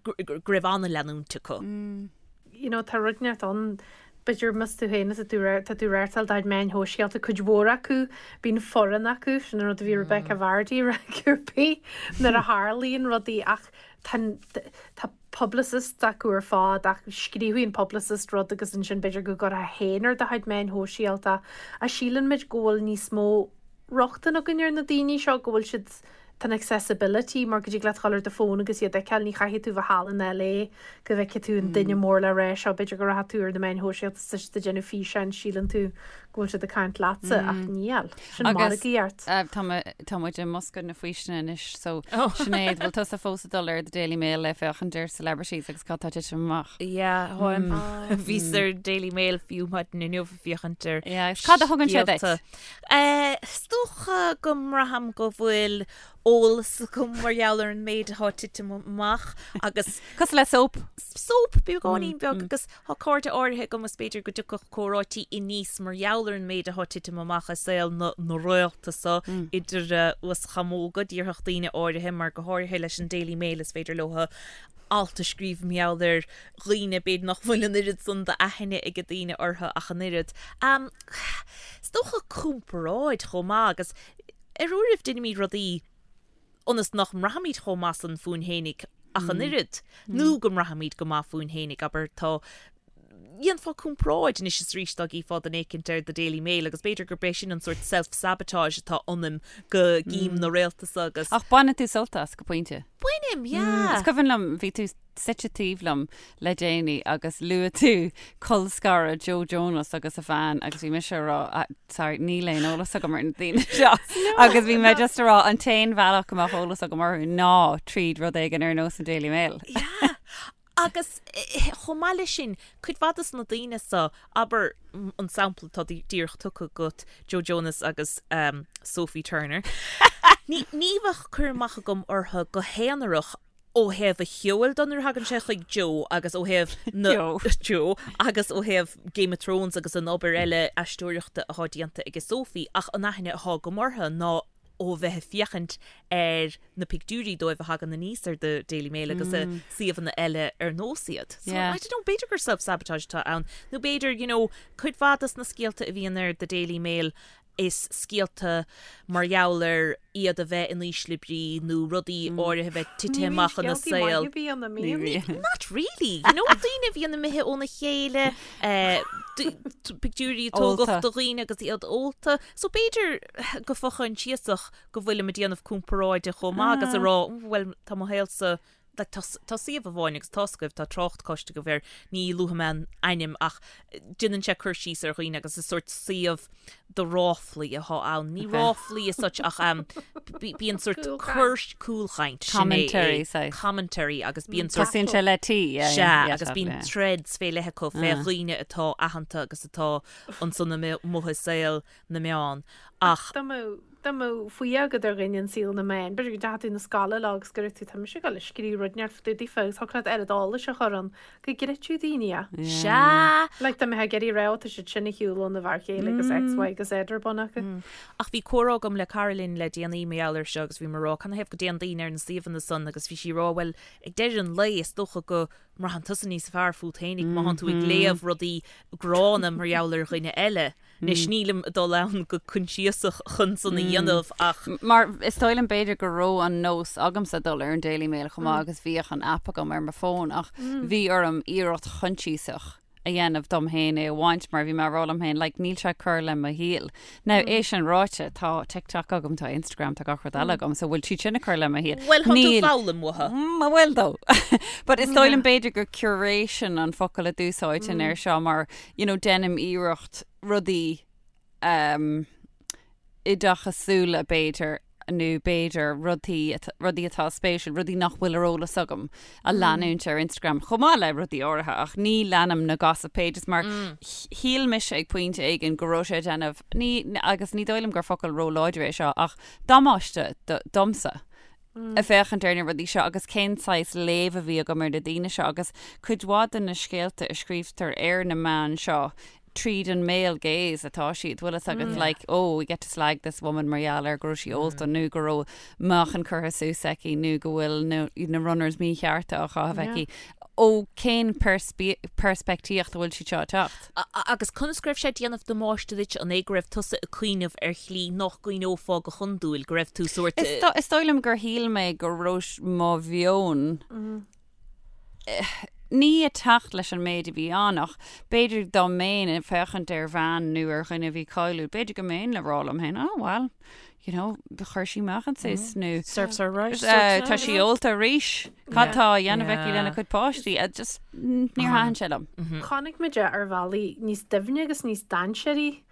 go raibh an-leanúint acu. You know tá rud inteacht ann b'fhéidir más tú féin is tú tá tú ag reáchtáil do chuid meáin shóisialta cuid mhór acu bíonn foireann acu sin an rud a bhí Rebekah Vardy ag rá cibé nuair a tharlaíonn rudaí ach tá tá publicist acu ar fad ach scríobhfaidh an publicist rud agus ansin b'fhéidir go gcuirfeá féin ar do chuid meáin shóisialta. Ach síleann muid go bhfuil níos mó rochtain againn ar na daoine seo, go bhfuil siad, tá an accessibility mar go dtig leat dhul ar do fón agus iad a fheiceáil, ní chaithfidh tú bheith thall in LA go bhfeicfidh tú an duine mór le rá seo, b'fhéidir go rachaidh tú ar na meáin shóisialta is tá siad ag déanamh físeáin, síleann tú go bhfuil siad ag caint leatsa ach níl. Sin margaíocht. Tá muid i mbosca na faoistine anois so Sinéad, bhfuil tusa fós ag dul ar The Daily Mail le féachaint ar celebrities agus cad tá ag titim amach? Yeah, tháim. Bhíos ar Daily Mail fiú maidin inniu ag féachaint ar Yeah, cad a thugann sé duit? Is dócha go mbraithim go bhfuil. eolas agam mar gheall ar an méid atá ag titim amach agus. Cosúil le soap. Soap, beagáinín beag agus tá cairde áirithe agam is b'fhéidir go dtiocfadh comhráití aníos mar gheall ar an méid atá ag titim amach i saol na na réalta so idir uaschamóga, déarfadh daoine áirithe, mar go háirithe leis an Daily Mail is féidir leo alt a scríobh mar gheall ar dhaoine b'fhéidir nach bhfuil an oiread san d'aithne ag daoine orthu ach an oiread. Is dócha comparáid chomh maith agus ar uairibh deinimid rudaí ionas nach mbraithimid chomh maith san fúinn fhéinig ach an oiread, nó go mbraithimid go maith fúinn fhéinig, abair, tá, dhéanfá comparáid anois is arís dá gcífeá duine éicint ar The Daily Mail agus b'fhéidir gurb é sin an sórt self-sabotage atá ionam go gcím na réalta so agus. Ach baineann tú sult as go pointe. Bainim, yeah. Is cuimhin liom, bhí tú suite taobh liom le déanaí agus luaigh tú colscaradh Joe Jonas agus a bhean agus bhí mise a rá ah, sorry, níl aon eolas agam ar na daoine seo agus bhí mé just a rá an t-aon bhealach go mbeadh eolas agam orthu ná tríd rud éigin ar nós an Daily Mail. Yeah. Agus chomh maith leis sin, cuid mhaith dos na daoine so, abair an sampla atá díreach tugtha agat, Joe Jonas agus Sophie Turner, ní bheadh cur amach agam orthu go haonarach ó thaobh a cheoil de nuair a thagann sé chuig Joe agus ó thaobh na Joe. Joe agus ó thaobh Game of Thrones agus an obair eile aisteoireachta atá déanta ag Sophie ach an aithne atá agam orthu ná ó bheith ag féachaint ar na pictiúirí dóibh a thagann aníos ar The Daily Mail agus i suíomhanna eile ar nós iad. So Yeah. I don't know, b'fhéidir gur self-sabotage atá ann nó b'fhéidir, you know, cuid mhaith dos na scéalta a bhíonn ar The Daily Mail is scéalta mar gheall ar iad a bheith in ísle brí nó rudaí áirithe a bheith tite amach ina saol. Ní bhíonn. Not really, you know, daoine a bhíonn imithe óna chéile, eh, pictiúirí a tógadh Ólta. do dhaoine agus iad ólta. So b'fhéidir go fo-choinsiasach go bhfuilim ag déanamh comparáide chomh maith agus a rá, bhuel, tá mo shaolsa, like, tá, tá suíomh amháin agus tá's agaibh, tá trácht cloiste agaibh air, ní luafaidh mé an ainm ach déanann sé cur síos ar dhaoine agus is sórt suíomh do ráflaí atá ann. Ní Okay. ráflaí as such ach um, bíonn sórt Cúlchaint. cur cúlchaint, sin é, Commentary, é. saghas. Commentary agus bíonn sórt Tosaíonn sé le T, yeah, Sea, yeah, yeah, agus tá, bíonn yeah. threads fé leith acu fé dhaoine atá aitheanta agus atá ansan amuigh i saol na meán ach. Dá mbeadh, dá mbeadh fuath agat ar dhuine in saol na meán, b'fhéidir go dteachaigh tú 'na scoile lá agus go raibh tú, tá mise ag dul ag scríobh rud inteacht fá dtaobh daofa agus thiocfadh leat oiread eolais a chur ann go gcreidfeadh daoine é. Sea! Like dá mbeifeá ag iarraidh a rá, tá siad sin ar shiúl óna bhfear chéile agus X, Y agus Z ar bun acu. Ach bhí comhrá agam le cara linn le déanaí mar gheall air seo agus bhí mé ag rá canathaobh go dtéann daoine ar na suíomhanna san agus bhí sí ag rá bhuel ag deireadh an lae is dócha go mbraitheann tusa níos fearr fút fhéinig má thánn tú ag léamh rudaí gránna mar gheall ar dhuine eile. Anois nílim ag dul ann go coinsiasach chun san a dhéanamh ach. Mar is dóigh liom b'fhéidir go raibh an nós agamsa dul ar an Daily Mail chomh maith agus bhíodh an aip agam ar mo fón ach bhí orm iarracht choinsiasach a dhéanamh dom féin é a bhaint mar bhí mé ag rá liom féin like níl sé ag cur le mo shaol. Now é sin ráite tá TikTok agam, tá Instagram, tá gach rud eile agam so bhfuil siad sin ag cur le mo shaol? Bhuel thá tú Níl. ag foghlaim uathu. Mm, bhfuil though. But is dóigh liom b'fhéidir gur curation an focal a d'úsáidfinn air seo mar you know, déanaim iarracht rudaí um, oideachasúla b'fhéidir nó b'fhéidir rudaí rudaí atá spéisiúil, rudaí nach bhfuil ar eolas agam a leanúint ar Instagram chomh maith le rudaí áirithe ach ní leanaim na gossip pages mar shíl mise ag pointe éigin go raibh sé ag déanamh ní agus ní dóigh liom gur focal róláidir é seo ach damáiste domsa. ag féachaint ar na rudaí seo agus cén saghas léamh a bhí agam ar na daoine seo agus cuid mhaith de na scéalta a scríobhtar ar na meáin seo tríd an male gaze atá siad, bhfuil fhios agat like oh we get to slag this woman mar gheall ar go raibh sí ólta nó go raibh meáchan curtha suas aici nó go bhfuil na, na runners míchearta á chaitheamh aici. Ó cén peirspictíocht a bhfuil siad seo ag teacht? Agus conas go raibh sé ag déanamh damáiste duit, an é go raibh tusa ag cuimhneamh ar shlí nach gcuimhneofá go hiondúil, go raibh tú sórt. Is dóigh liom gur shíl mé go raibh mo mheon ní ag teacht leis an méid a bhí ann ach b'fhéidir dá mbeinn ag féachaint ar bhean nó ar dhuine a bhí cáiliúil, b'fhéidir go mbeinn le rá liom féin, oh well, you know, chuir sí meáchan suas nó Serves her right. tá sí ólta arís. Cad tá á dhéanamh aici lena cuid páistí? Just níor thaitin sé liom. Chonaic muid é ar bhealaí níos doimhne agus níos dainséaraí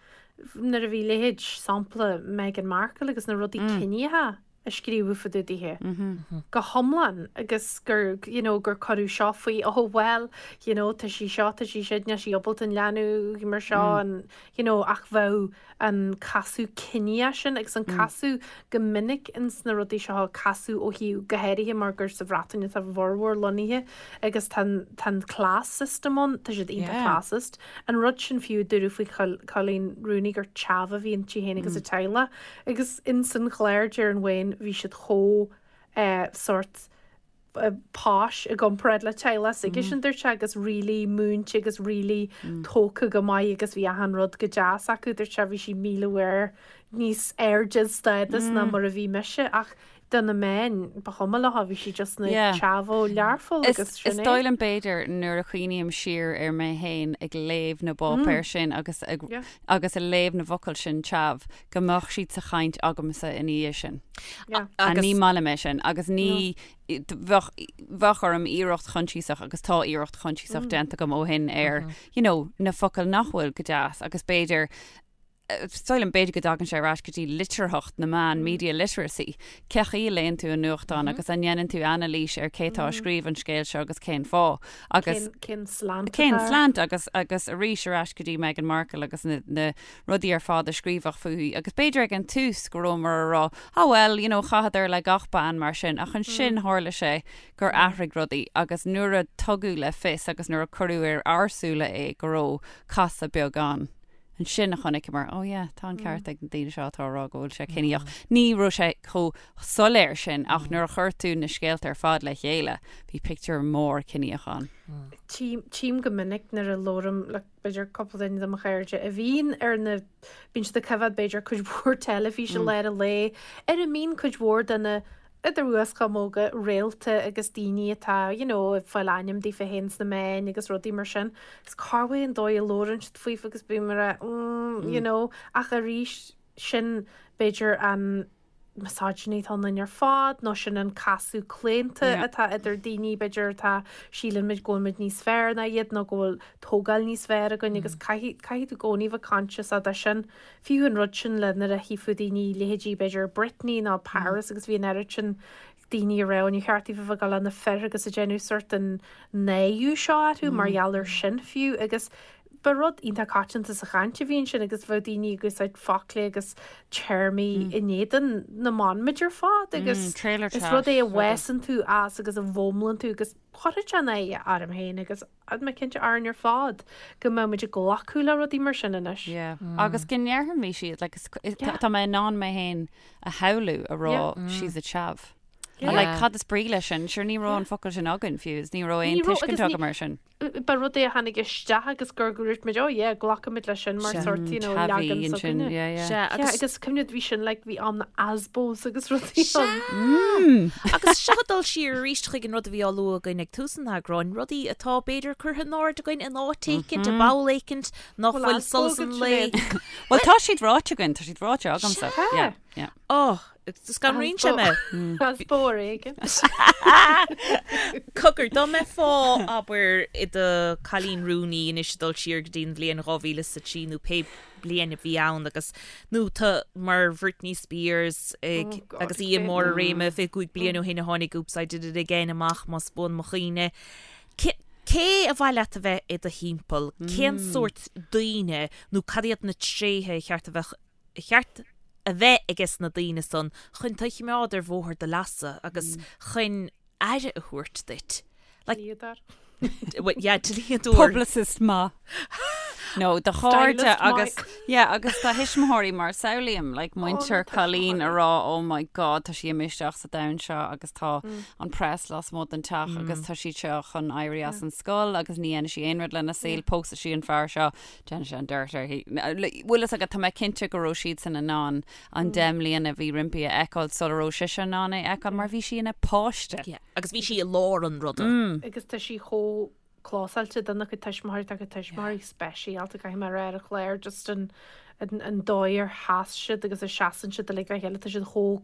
nuair a bhí leithéid sampla Meghan Markle agus na rudaí ciníocha. a scríobhadh fá dtaobh dithe go hiomlán agus gur you know gur cuireadh seo faoi oh well you know tá sí seo tá sí sin níl sí ábalta an leanbh mar seo an you know ach bheadh an casadh ciníoch sin agus an casadh go minic ins na rudaí seo casadh ó thaobh go háirithe mar gur sa Bhreatain atá a bhformhór lonnaithe agus tá an tá an class system ann tá siad iontach classist an rud sin fiú a dúradh faoi Coleen Rooney gur chav a bhí inti féin agus a teaghlach Agus ins an chlár deir an Wayne bhí siad chomh eh sórt eh posh i gcomparáid le teaghlach s'aigesean dúirt sé agus really múinte agus really tógtha go maith agus bhí achan rud go deas acu dúirt sé bhí sí 1000 uair níos airde stádas ná mar a bhí mise ach do na meáin ba chuma leo bhí sí just ina Yeah. chav ó Learpholl Is, agus sin is é. dóigh liom b'fhéidir nuair a chuimhním siar ar mé féin ag léamh na bpáipéar sin agus ag, Yeah. agus ag léamh na bhfocal sin chav, go mbeadh siad sa chaint agamsa ina dhiaidh sin. Yeah. Agus ní maith liom é sin agus ní bheadh bheadh orm iarracht choinsiasach agus tá iarracht choinsiasach déanta agam ó shin ar you know, na focail nach bhfuil go deas agus b'fhéidir is dóigh liom b'fhéidir go dtagann sé ar ais go dtí litearthacht na meán, media literacy. Cén chaoi a léann tú an nuachtán agus an ndéanann tú anailís ar cé tá ag scríobh an scéil seo agus cén fáth agus Cén slant cén atá air. slant agus agus arís ar ais go dtí Meghan Markle agus na, na rudaí ar fad a scríobhadh fúithi agus b'fhéidir ag an tús go rabhamar a rá ah well you know chaitheadar le gach bean mar sin ach ansin tharla sé gur athraigh rudaí agus nuair a tugadh le fios agus nuair a cuireadh ar ár súile é go raibh casadh beag ann ansin a chonaiceamar oh yeah tá an ceart ag na daoine seo atá a rá go bhfuil sé ciníoch. Ní raibh sé chomh soiléir sin ach nuair a chuir tú na scéalta ar fad le chéile bhí pictiúr mór ciníoch ann. Tchím go minic nuair a labhraím le b'fhéidir cúpla duine de mo chairde a bhíonn ar na, bíonn siad ag coimhéad b'fhéidir cuid mhór teilifíse i lár an lae, ar a mbíonn cuid mhór de na, idir uaschamóga, réalta agus daoine atá you know ag fáil ainm daofa féin sna meáin agus rudaí mar sin. Is corruair an dóigh a labhrann siad faofa agus bím ag rá mm you know ach arís sin b'fhéidir an misogyny atá ionainn ar fad nó sin an casadh claonta atá idir daoine b'fhéidir atá síleann muid go bhfuil muid níos fearr ná iad nó go bhfuil tógáil níos fearr againn agus caithfidh caithfidh tú i gcónaí bheith conscious de sin. Fiú an rud sin le nuair a chífeá daoine leithéidí b'fhéidir Britney nó Paris agus bhí an oiread sin daoine ag rá níor cheart daofa bheith ag dul le na fir agus ag déanamh sort an náiriú seo orthu mar gheall ar sin fiú agus ba rud iontach coitianta sa chaint a bhí ansin agus bheadh daoine ag úsáid foclaí agus téarmaí in éadan na mban muid ar fad agus is rud é a bhfásann tú as agus a bhfoghlaimíonn tú agus chuirfeadh sé náire orm féin agus tá mé cinnte orainn ar fad go mbeidh muid ag glacadh le rudaí mar sin anois. Yeah. Agus go ndéarfaimis iad, like, tá mé in ann mé féin a shamhlú a rá she's a chav. Yeah. Like, cad is brí leis sin? Sure ní raibh an focal sin againn fiú, is ní raibh aon tuiscint agam air sin. Ba rud é a tháinig isteach agus gur dhúirt muid, oh yeah, glacfaimid leis sin mar sort, you know, leagan s'againne. Yeah, yeah. Sea, agus, agus cuimhnigh bhí sin like, bhí am na ASBOs agus rudaí ann. Agus seo ag dul siar arís chuig an rud a bhí á lua againn ag tús an eagráin, rudaí atá b'fhéidir curtha in airde againn in áit éicint, i bpoll éicint, nach bhfuil solas an lae. Bhuel, tá siad ráite againn, tá siad ráite agamsa. Sea. Yeah, yeah. Oh, Scanraíonn sé mé. ASBO ar éigean. Cogar, dá mbeifeá, abair, i do Coleen Rooney anois ag dul siar go dtí an bhliain 2003 nó pé bliain a bhí ann agus, nó tú mar Britney Spears ag, Oh God, agus í i mbarr a réime 25 bliain ó shin a tháinig Oops, I Did It Again amach, más buan mo chuimhne. Cé, cé a mhaith leat a bheith i do thimpeall? Cén sórt daoine nó cad iad na tréithe a cheart a bheadh cheart a bheith aige sna daoine san chun tú a chimeád ar bhóthar do leasa agus chun aire a thabhairt duit. Like, Dlíodóir. well, yeah, dlíodóir. Publicist maith. No, do chairde Stylist agus maith. yeah, agus do thuismitheoirí mar samhlaím like muintir na Coleen a tuismitheoirí. rá oh my god tá sí imithe isteach sa domhan seo agus tá an press lasmuigh den teach agus tá siad seo chun éirí as an scoil agus ní dhéanfaidh sí aon rud lena saol, pósfaidh sí an fear seo Déanfaidh sé an dirt uirthi. Bhfuil fhios agat, tá mé cinnte go raibh siadsan in ann an 10 mbliana a bhí roimpi a fheiceáil sula raibh sise in ann é a fheiceáil mar bhí sí ina páiste. Yeah, agus bhí sí i lár an ruda. Agus tá sí chomh clósáilte dona cuid tuismitheoirí, tá a cuid tuismitheoirí speisialta, caithfidh mé a rá ar an chlár, just an an dóigh ar sheas siad agus a seasann siad uilig le chéile, tá siad chomh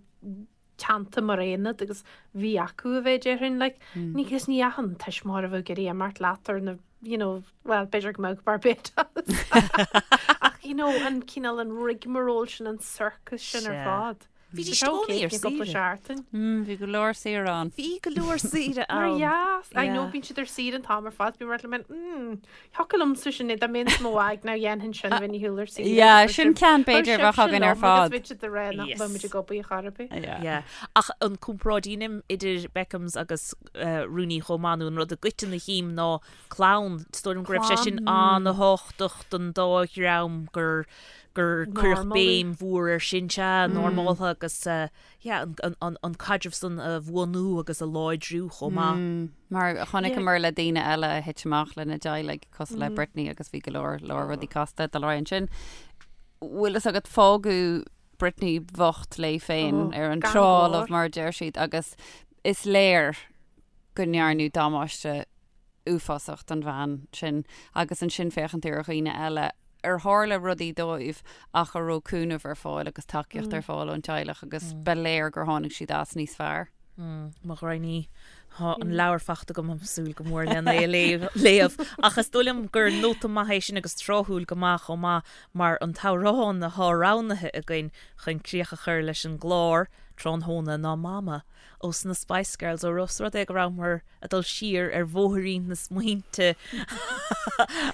teannta mar aonad agus bhí acu a bheith déarfainn like ní agus ní achan tuismitheoir a bheadh ag iarraidh imeacht leat ar na you know well b'fhéidir go mbeadh Barbados ach you know an cineál an rigmarole sin an circus sin ar Sea. fad. Bhídís i gcónaí ar saoire. Seachtain. Bhí go leor saoire ann. Bhí go leor saoire ann. Mar dheas. I know bíonn siad ar saoire an t-am ar fad. Bím mar mm, thiocfadh liomsa sin dá mbeinn sa mo mhaig ná dhéanfainn sin bheinn ar shiúl ar saoire. Yeah, sin ceann b'fhéidir a bheadh againn ar fad. Agus bhí siad ag rá nach mbeidh muid ag obair chor ar bith. Yeah. Ach an comparáid a dheinim idir Beckhams agus Rooney chomh maith nó an rud i gcoiteann a chím ná clann. Is dóigh liom go raibh sé sin an-thábhachtach don dá dhream gur gur cuireadh béim mhór air sin, sea, normáltha agus yeah, an, an, an caidreamh san a bhuanú agus a láidriú chomh maith. Mar chonaiceamar le daoine eile a thit amach lena dteaghlaigh cosúil le Britney agus bhí go leor leor rudaí casta ag dul ar aghaidh ansin. Bhfuil fhios agat fágadh Britney bhocht léi féin ar an trá fholamh mar a deir siad agus is léir go ndearnadh damáiste uafásach don bhean sin agus ansin féachann tú ar dhaoine eile ar tharla rudaí dóibh ach a raibh cúnamh ar fáil agus tacaíocht ar fáil ón teaghlach agus ba léir gur tháinig siad as níos fearr. Mo ghraidhin, tá an leabhar fachta agam, ag súil go mór lena é a léamh. Ach is dóigh liom gur nóta maith é sin agus tráthúil go maith chomh maith mar an t-amhrán atá roghnaithe againn chun críoch a chur leis an gclár tráthnóna ná Mama ós na Spice Girls ó ós rud é go rabhamar ag dul siar ar bhóithrín na smaointe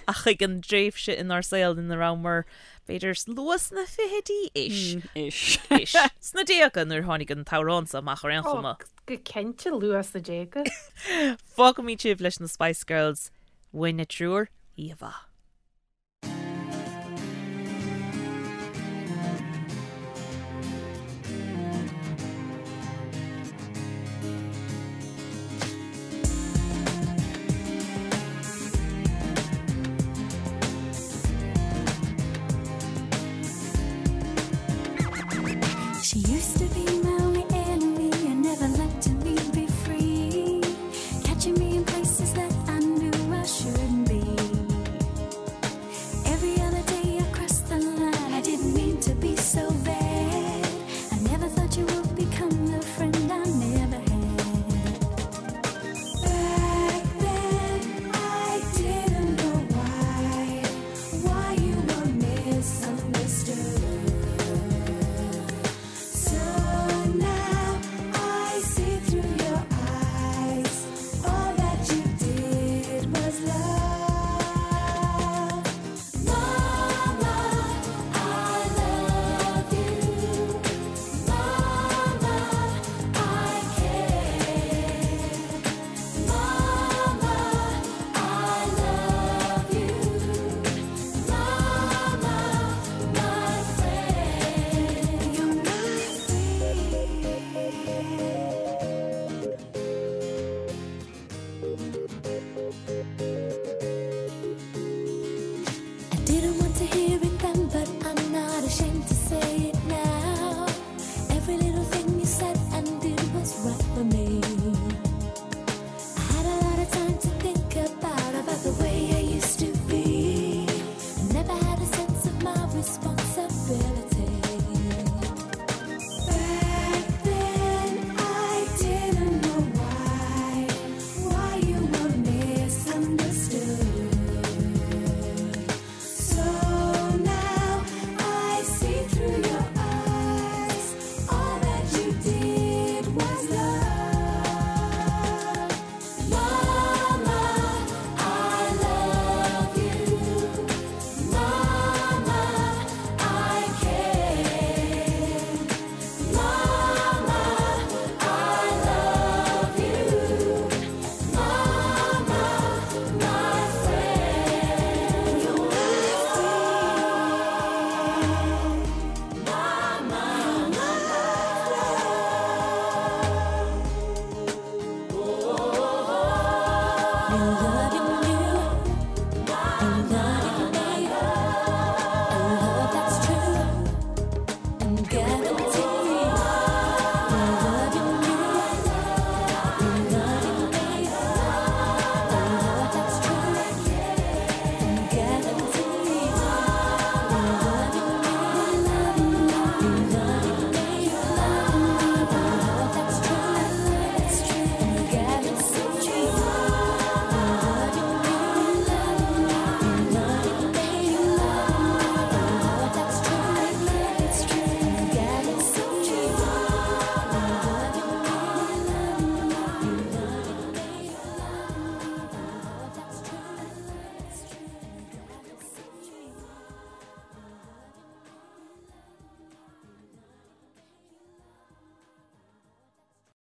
ach chuig an dtréimhse inár saol ina rabhamar b'fhéidir luath sna fichidí ish. Ish. Ish. Sna déaga nuair a tháinig an t-amhrán seo amach ar aon chuma. Go cinnte luath sna déaga. Fágfaimid sibh leis na Spice Girls. Uainne triúr, oíche mhaith.